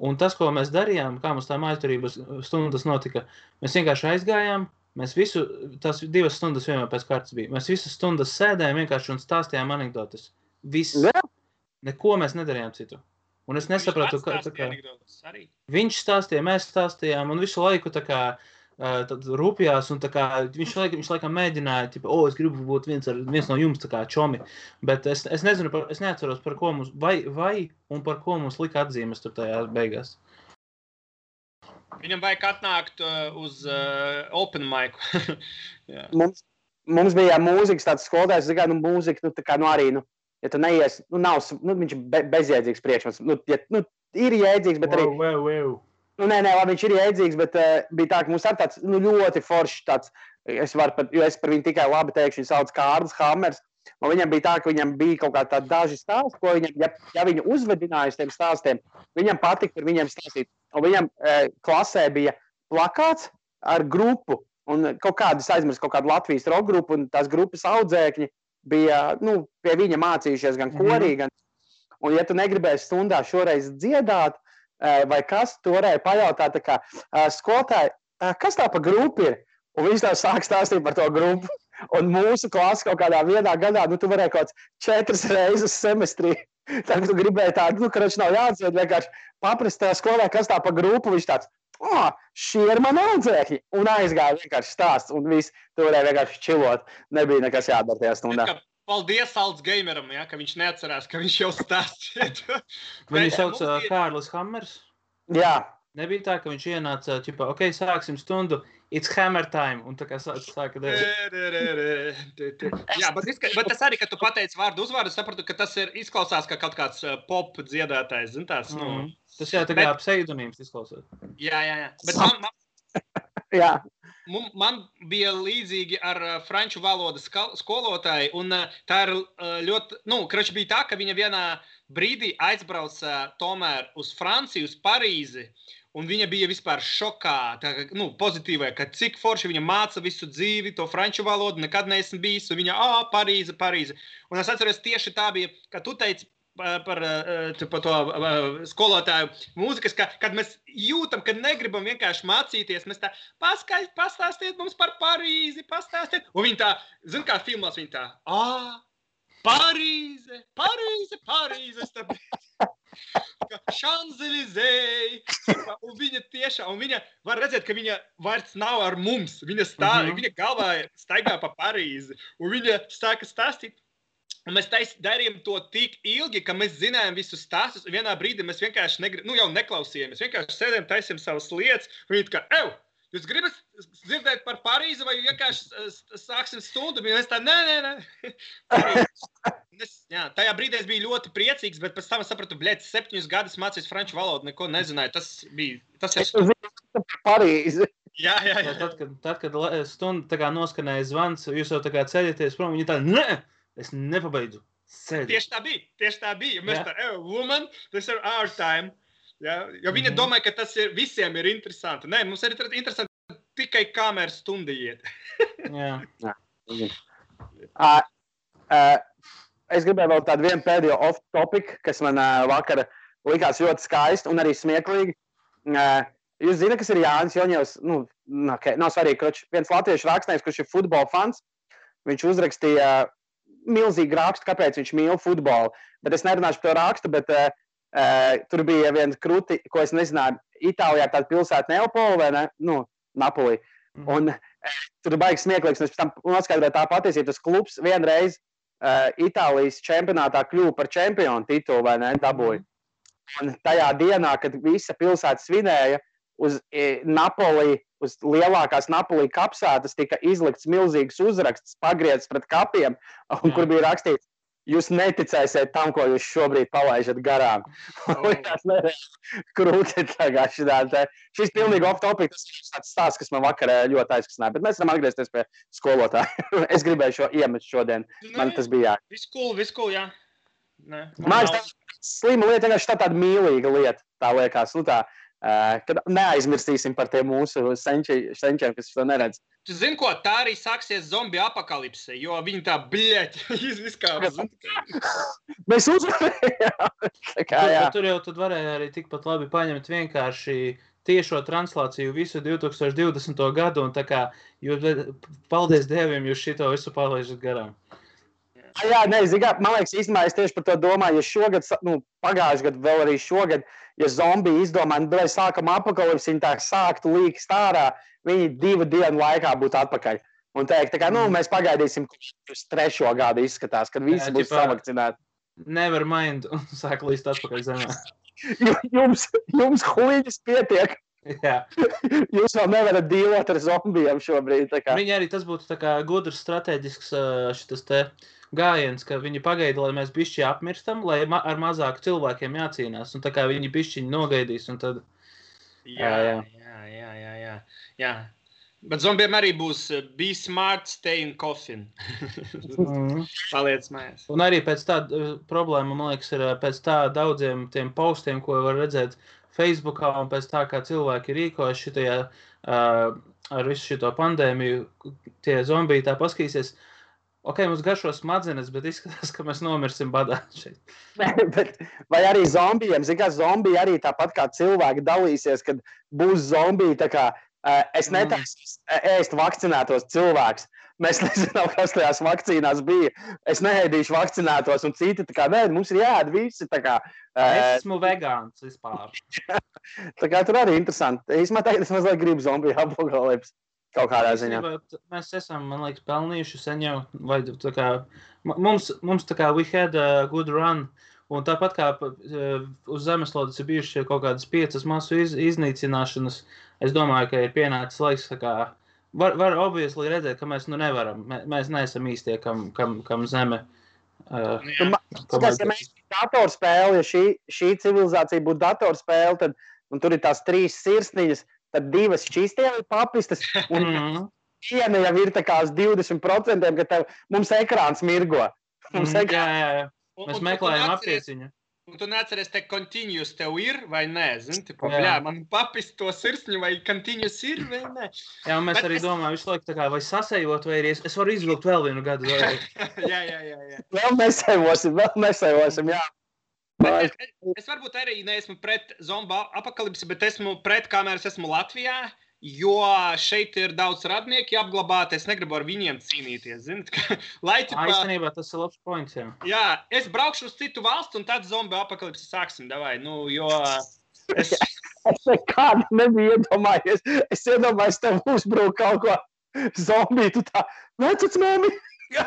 Un tas, ko mēs darījām, kā mums tā mājturības stundas notika, mēs vienkārši aizgājām, mēs tās 2 stundas vienmēr pēc kārtas bija. Mēs visas stundas sēdējām vienkārši un stāstījām anekdotas. Viss. Neko mēs nedarījām citu. Un es nesapratu, kā viņš stāstīja, mēs stāstījām un visu laiku tā kā tad rūpjās un tā kā viņš laikam mēģināja, es gribu būt viens no jums tā kā čomi. Bet es nezinu, es neatceros, par ko mums, vai un par ko mums lika atzīmes tur tajā beigās. Viņam vajag atnākt uz open mic. mums bija mūzikas tāds skolotājs, mūzika, arī, ja tu neies, viņš ir bezjēdzīgs priekšmets. Ir jēdzīgs, bet arī... Nē, labi, viņš ir jēdzīgs, bet bija tā, ka mums ir tāds ļoti foršs tāds, jo es par viņu tikai labi teikšu, viņš sauc Kārlis Hammers. Un viņam bija tā, ka viņam bija kaut kā tādi daži stāsti, ko viņam, ja viņu uzvedināja uz tiem stāstiem, viņam patika par viņiem stāstīt. Un viņam klasē bija plakāts ar grupu, un kaut kādu Latvijas rock grupu, un tās grupas audzēkņi bija, pie viņa mācījušies gan korī, gan... Un ja tu negribēji stundā šoreiz dziedāt, vai kas, tu varēja pajautāt, tā kā, skolotāji, kas tā pa grupu ir? Un viņš tā sāk stāstīt par to grupu. Un mūsu klasa kaut kādā vienā gadā, tu varēji kaut 4 reizes semestrī. Tā, ka tu gribēji tādu, karoči nav jāatdzied, vienkārši paprast tā skolē, kas tā pa grupu, viņš tāds, šie ir mani audzēkļi. Un aizgāja vienkārši stāsts, un viss, tu varēji vienkārši čilot. Nebija nekas jādara tajā stundā. Paldies Altsgameram, ja, ka viņš neatcerās, ka viņš jau stāstīja. Viņu sauc Kārlis Hammers? Jā. Nebija tā, ka viņš ienāca, sāksim stundu, it's hammer time, un tā kā sāka darīt. Jā, bet tas arī, ka tu pateici vārdu uzvārdu, sapratu, ka tas izklausās kā kaut kāds pop dziedātājs, zin tās, Tas jā, tā kā pseidonīms izklausās. Jā. Bet man bija līdzīgi ar franču valodas skolotāju, un tā ir ļoti, bija tā, ka viņa vienā brīdī aizbrauca tomēr uz Franciju, uz Parīzi, un viņa bija vispār šokā, pozitīvai, ka cik forši viņa māca visu dzīvi, to franču valodu, nekad neesmu bijis, un viņa, Parīze. Un es atceros, tieši tā bija, ka tu teici par to skolotāju mūzikas, kad mēs jūtam, ka negribam vienkārši mācīties, mēs tā, pastāstiet mums par Parīzi, pastāstiet. Un viņa tā, zin kā filmās, viņa tā, Parīze, Šanzelizei, un viņa tiešām, un viņa var redzēt, ka viņa vairs nav ar mums, viņa galvā staigā pa Parīzi, un viņa sāka stāstīt, un mēs darījām to tik ilgi, ka mēs zinājām visus stāstus, un vienā brīdī mēs vienkārši jau neklausījāmies, vienkārši sēdējām, taisījām savas lietas, un viņa tā kā, jūs gribat dzirdēt par Parīzi, vai vienkārši sāksim stundu? Mēs tā, nē. Tajā brīdī es biju ļoti priecīgs, bet pēc tam es sapratu, 7 gadus mācījos franču valodu, neko nezināju. Tas ir Parīzi. Jā. Tad, kad stunda tā kā noskanēja zvans, jūs jau tā kā ceļaties prom, viņi tā, nē, es nepabeidzu. Tieši tā bija. Mēs tā, woman, this is our time. Ja, jo viņa domāja, ka tas visiem ir interesanti. Nē, mums ir interesanti tikai kamēr stunda iet. Jā. Es gribēju vēl tādu vienu pēdējo off-topic, kas man vakar likās ļoti skaisti un arī smieklīgi. Jūs zināt, kas ir Jānis Joņevs? Nav svarīgi, ka viens latviešu rakstnieks, kurš ir futbola fans, viņš uzrakstīja milzīgu rakstu, kāpēc viņš mīl futbolu. Bet es nerunāšu par to rakstu, bet tur bija viens kruti, ko es nezināju, Itālijā tāda pilsēta Neapoli vai ne? Napoli. Un tur baigs smieklīgs, un es pēc tam noskaidroju tā patiesība, tas klubs vienreiz Itālijas čempionātā kļuva par čempionu titulu, vai ne, dabūja. Un tajā dienā, kad visa pilsēta svinēja, uz Napoli, uz lielākās Napoli kapsētas tika izlikts milzīgs uzraksts, pagriezts pret kapiem, un kur bija rakstīts, jūs neticēsiet tam, ko jūs šobrīd palaižat garām. Krūti tagad šitā. Šis pilnīgi off-topic, tas ir tāds stāsts, kas man vakarā ļoti aizkasināja, bet mēs varam atgriezties pie skolotāja. Es gribēju šo iemest šodien. Man tas bija jā. Viss cool, jā. Man tā slima lieta, vienkārši tāda mīlīga lieta, tā liekas. Nu tā, kad neaizmirstīsim par tiem mūsu senčiem, kas to neredz. Tu zini, ko tā arī sāksies zombiju apakalipse, jo viņi tā izviskāpas. Mēs uzvarējām. Tur jau tad varēja arī tikpat labi paņemt vienkārši tiešo translāciju visu 2020. gadu, un tā kā, paldies Dieviem, jūs šito visu palaižat garām. Jā, man liekas, īstenībā es tieši par to domāju, ja šogad, pagājuši gadu, vēl arī šogad, ja zombiji izdomāja, vai sākam apakalipsi, viņi tā sāktu līkst ārā, viņi 2 dienu laikā būtu atpakaļ. Un teikt, tā kā, mēs pagaidīsim, kurš 3. gadu izskatās, kad visi būs savakcinēti. Never mind, un sāk līst atpakaļ zemē. Jums huīņas pietiek. Jā. Jūs vēl nevarat dīlot ar zombijiem šobrīd. Viņi arī tas būtu tā kā gudrs strateģisks šitas te gājiens, ka viņi pagaida, lai mēs bišķi apmirstam, lai ar mazāku cilvēkiem jācīnās. Un tā kā viņi bišķiņi nogaidīs, un tad... Jā. Bet zombiem arī būs be smart, stay in coffin. Paliec mājās. Un arī pēc tā problēma, man liekas, ir pēc tā daudziem tiem postiem, ko var redzēt Facebookā, un pēc tā, kā cilvēki rīkojas šitajā ar visu šito pandēmiju, tie zombiji tā paskatīsies. Ok, mums garšo smadzenes, bet izskatās, ka mēs nomirsim badā šeit. Vai arī zombijiem, zin kā zombiji arī tāpat kā cilvēki dalīsies, kad būs zombiji, tā kā es netaisu ēst vakcinētos cilvēkus. Mēs nezinām, kas tajās vakcīnās bija. Es neēdīšu vakcinētos, un citi tā kā, nē, mums ir jāēd visi, tā kā. Es esmu vegāns vispār. Tā kā tur arī interesanti. Īsmā tagad es mazliet gribu zombiju apakalipsi. Kaut kādā ziņā. Mēs esam, man liekas, pelnījuši sen jau, vai tā kā, mums tā kā we had a good run, un tāpat kā uz zemeslodes ir bijuši kaut kādas 5 masu iznīcināšanas, es domāju, ka ir pienācis laiks, tā kā, var obviously redzēt, ka mēs nevaram, mēs neesam īstie, kam zeme. Ja mēs datorspēli, ja šī civilizācija būtu datorspēle, tad, un tur ir tās 3 sirsniņas, tad 2 šķīstie ir papistas, un viena jau ir tā kā uz 20%, ka mums ekrāns mirgo. Jā. Mēs meklējam aptieciņu. Un tu neatceries, te continuous tev ir vai nē, zini, tipo, bļā, man papist to sirsņu, vai continuous ir vai nē. Jā, un mēs arī domājam visu laiku tā kā, vai sasējot, vai arī es varu izvilkt vēl vienu gadu. Jā. Vēl nesēvosim, jā. Es varbūt arī neesmu pret zombu apakalipsi, bet esmu pret, kamēr es esmu Latvijā, jo šeit ir daudz radnieki apglabāti, es negribu ar viņiem cīnīties, zini? Īstenībā tas ir labs points, jā. Jā, es braukšu uz citu valstu, un tad zombu apakalipsi sāksim, davai, jo... Es nekādi nebiju iedomājies. Es iedomājos, tev uzbrūk kaut ko zombiju, tu tā, vecits mēmi! Jā.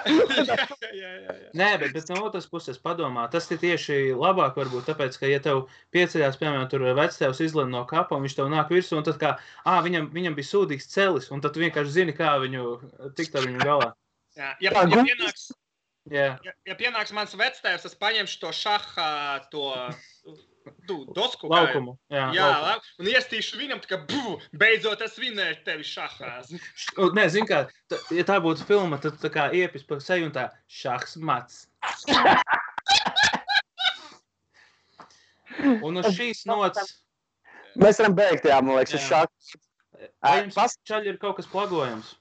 Nē, bet no otras puses padomā, tas ir tieši labāk varbūt, tāpēc, ka ja tev pieceļās, piemēram, tur vectēvs izlien no kapa, un viņš tev nāk virsū, un tad kā, viņam bija sūdīgs celis, un tad tu vienkārši zini, kā viņu tikt ar viņu galā. Jā, ja pienāks mans vectēvs, es paņemšu to šaha, to... dosku laukumu. Jā, un iestīšu viņam, tā kā, beidzot es vinēšu tevi šahās. Nē, zin kā, ja tā būtu filma, tad tā kā iepis pa seju un tā šahs mats. Un uz šīs nots... Mēs varam beigt, jā, man liekas, uz šahs. Vai jums čaļi ir kaut kas plagojams?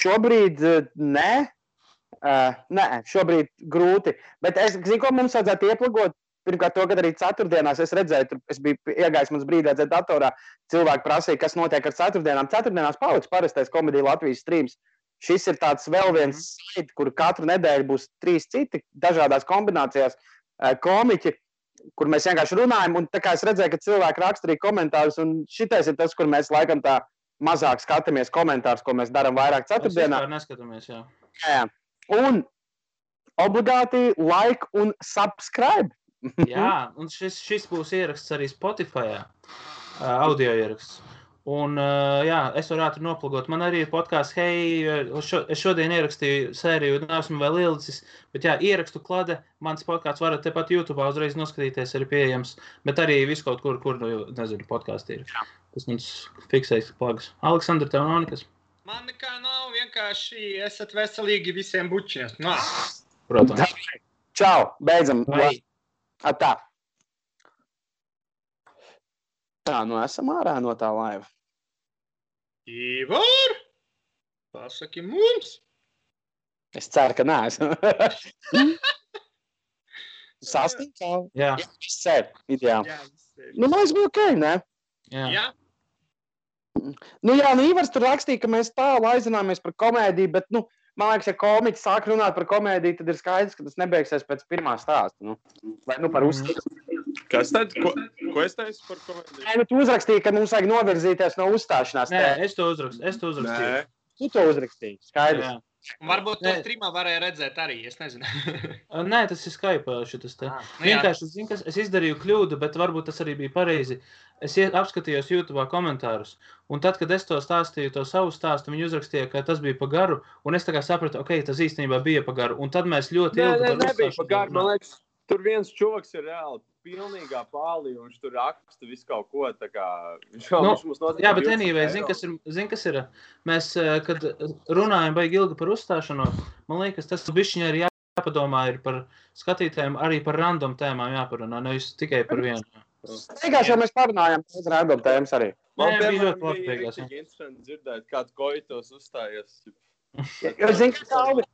Šobrīd nē. Nē, šobrīd grūti. Bet es zinu, ko mums vajadzētu ieplagot. Pirmkārt, to, kad arī ceturtdienās es redzēju, es biju iegājis mums brīdī redzēt datorā, cilvēki prasīja, kas notiek ar ceturtdienām. Ceturtdienās paliks parastais Komedija Latvijas streams. Šis ir tāds vēl viens slide, kur katru nedēļu būs 3 citi dažādās kombinācijās komiķi, kur mēs vienkārši runājam. Un tā kā es redzēju, ka cilvēki raksta arī komentārus, un šitais ir tas, kur mēs laikam tā mazāk skatāmies komentārus, ko mēs darām vairāk ceturtdienā. Mēs neskatāmies, jā. Jā. Un obligāti like un subscribe. Jā, un šis būs ieraksts arī Spotify'ā, audio ieraksts. Un, jā, es varu ātri noplagot. Man arī ir podcasts, es šodien ierakstīju sēriju, neesmu vēl ielicis, bet jā, ierakstu klade, mans podcasts varat tepat YouTube'ā uzreiz noskatīties, arī pieejams, bet arī visu kaut kur, nezinu, podcasts ir. Tas mums fiksējas plagas. Aleksandra, tev nav nekas? Man nekā nav, vienkārši esat veselīgi visiem bučiem. Nā. Protams. Čau, beidzam. Vai. Tā. Tā, nu esam ārā no tā laiva. Ivor, pasaki mums. Es ceru, ka neesmu. Sastīkā. Jā. Jā, viss sēd. Ideāli. Jā, viss. Nu, mēs būtu ok, ne? Jā. Nu jā, nu Ivars tur rakstīja, ka mēs tālu aizināmies par komēdiju, bet, nu, man liekas, ja komiķi sāk runāt par komēdiju, tad ir skaidrs, ka tas nebeigsies pēc pirmā stāsta, nu. Vai, nu, par uzskatu. Kas tad? Ko es teicu par komēdiju? Nē, nu, tu uzrakstīji, ka mums vajag novirzīties no uzstāšanās. Nē, es to uzrakstīju. Nē. Tu to uzrakstīji, skaidrs. Jā. Un varbūt to streamā varēja redzēt arī, es nezinu. Nē, tas ir Skype šitas te. Nu jā. Vienkārši, zinu, kas es izdarīju kļūdu, bet varbūt tas arī bija pareizi. Es apskatījos YouTube'ā komentārus, un tad, kad es to stāstīju, to savu stāstu, viņi uzrakstīja, ka tas bija pa garu, un es tā kā sapratu, ok, tas īstenībā bija pa garu, un tad mēs ļoti ilgi par nebija uzstāšanu pa garu, man runājām. liekas, tur viens čovaks ir reāli pilnīgā pālī, un viņš tur raksta visu kaut ko, tā kā... Jā, bet anyway, zin, kas ir, mēs, kad runājam baigi ilgi par uzstāšanos, man liekas, tas bišķiņā ir jāpadomā ir par skatītājiem, arī par random tēmām jāparunā, nevis tikai par vienu. Beigās jau mēs parunājām par random tēmas arī. Man, Nē, bija piemēram, ļoti labi beigās, bija interesanti dzirdēt, kāds koitos uzstājies. Jo, zini,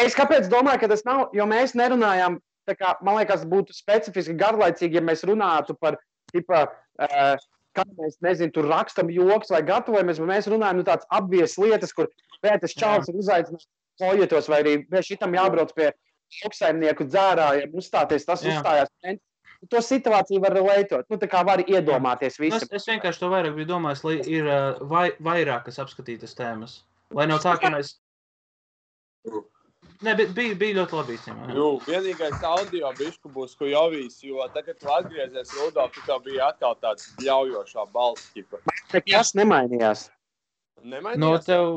es kāpēc domāju, ka tas nav, jo mēs nerunājām, tā kā, man liekas, būtu specifiski garlaicīgi, ja mēs runātu par, tipa, kā mēs, nezinu, tur rakstam joks vai gatavojamies, bet mēs runājam, nu, tāds apvies lietas, kur Pēters Čāls ir uzaicinājis kojetos, vai arī šitam jābrauc pie lauksaimnieku dzērājiem, uzstāties, tas uzstājās. To situāciju var relētot, nu, tā kā var iedomāties visu. Es vienkārši to vairāk biju domājis, lai ir vairākas apskatītas tēmas. Lai nav tā, ka mēs... Nē, bet bija ļoti labi īstenībā. Jū, vienīgais audio bišku būs Kujovīs, jo tagad tu atgriezies Rudolf, tu tev bija atkal tāds ļaujošā balss, ķipa. Nekas nemainījās. Nemainījās? No tev,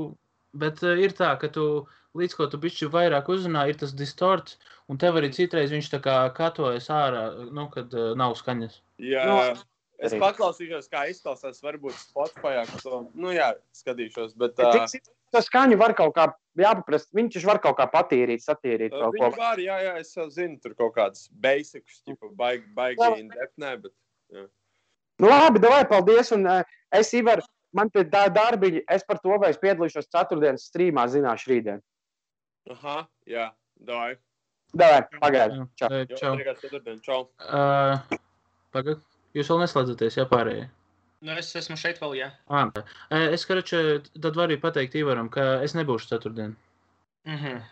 bet ir tā, ka tu, līdz ko tu bišķi vairāk uzrunā, ir tas distorts, un tev arī citreiz viņš tā kā katojas ārā, nu, kad nav skaņas. Jā, es paklausīšos, kā izklausās, varbūt Spotify'ā, ka to, nu jā, skatīšos, bet... To skaņu var kaut kā jāpaprast, viņš var kaut kā patīrīt, satīrīt kaut ko. Viņi var, jā, es jau zinu, tur kaut kāds basics, tipa, baigi indepnē, bet... Jā. Nu labi, davai, paldies, un es, Ivar, man te tā darbiņi, es par to, vai es piedalīšos ceturtdienas streamā, zināšu rītdien. Aha, jā, davai. Davai, pagaidi. Čau. Čau. Ceturtdien, čau. Pagad, jūs vēl neslēdzaties, jā, pārējie? Nu, es esmu šeit vēl, jā. Es, karačē, tad varu pateikt Ivaram, ka es nebūšu ceturtdien. Mhm.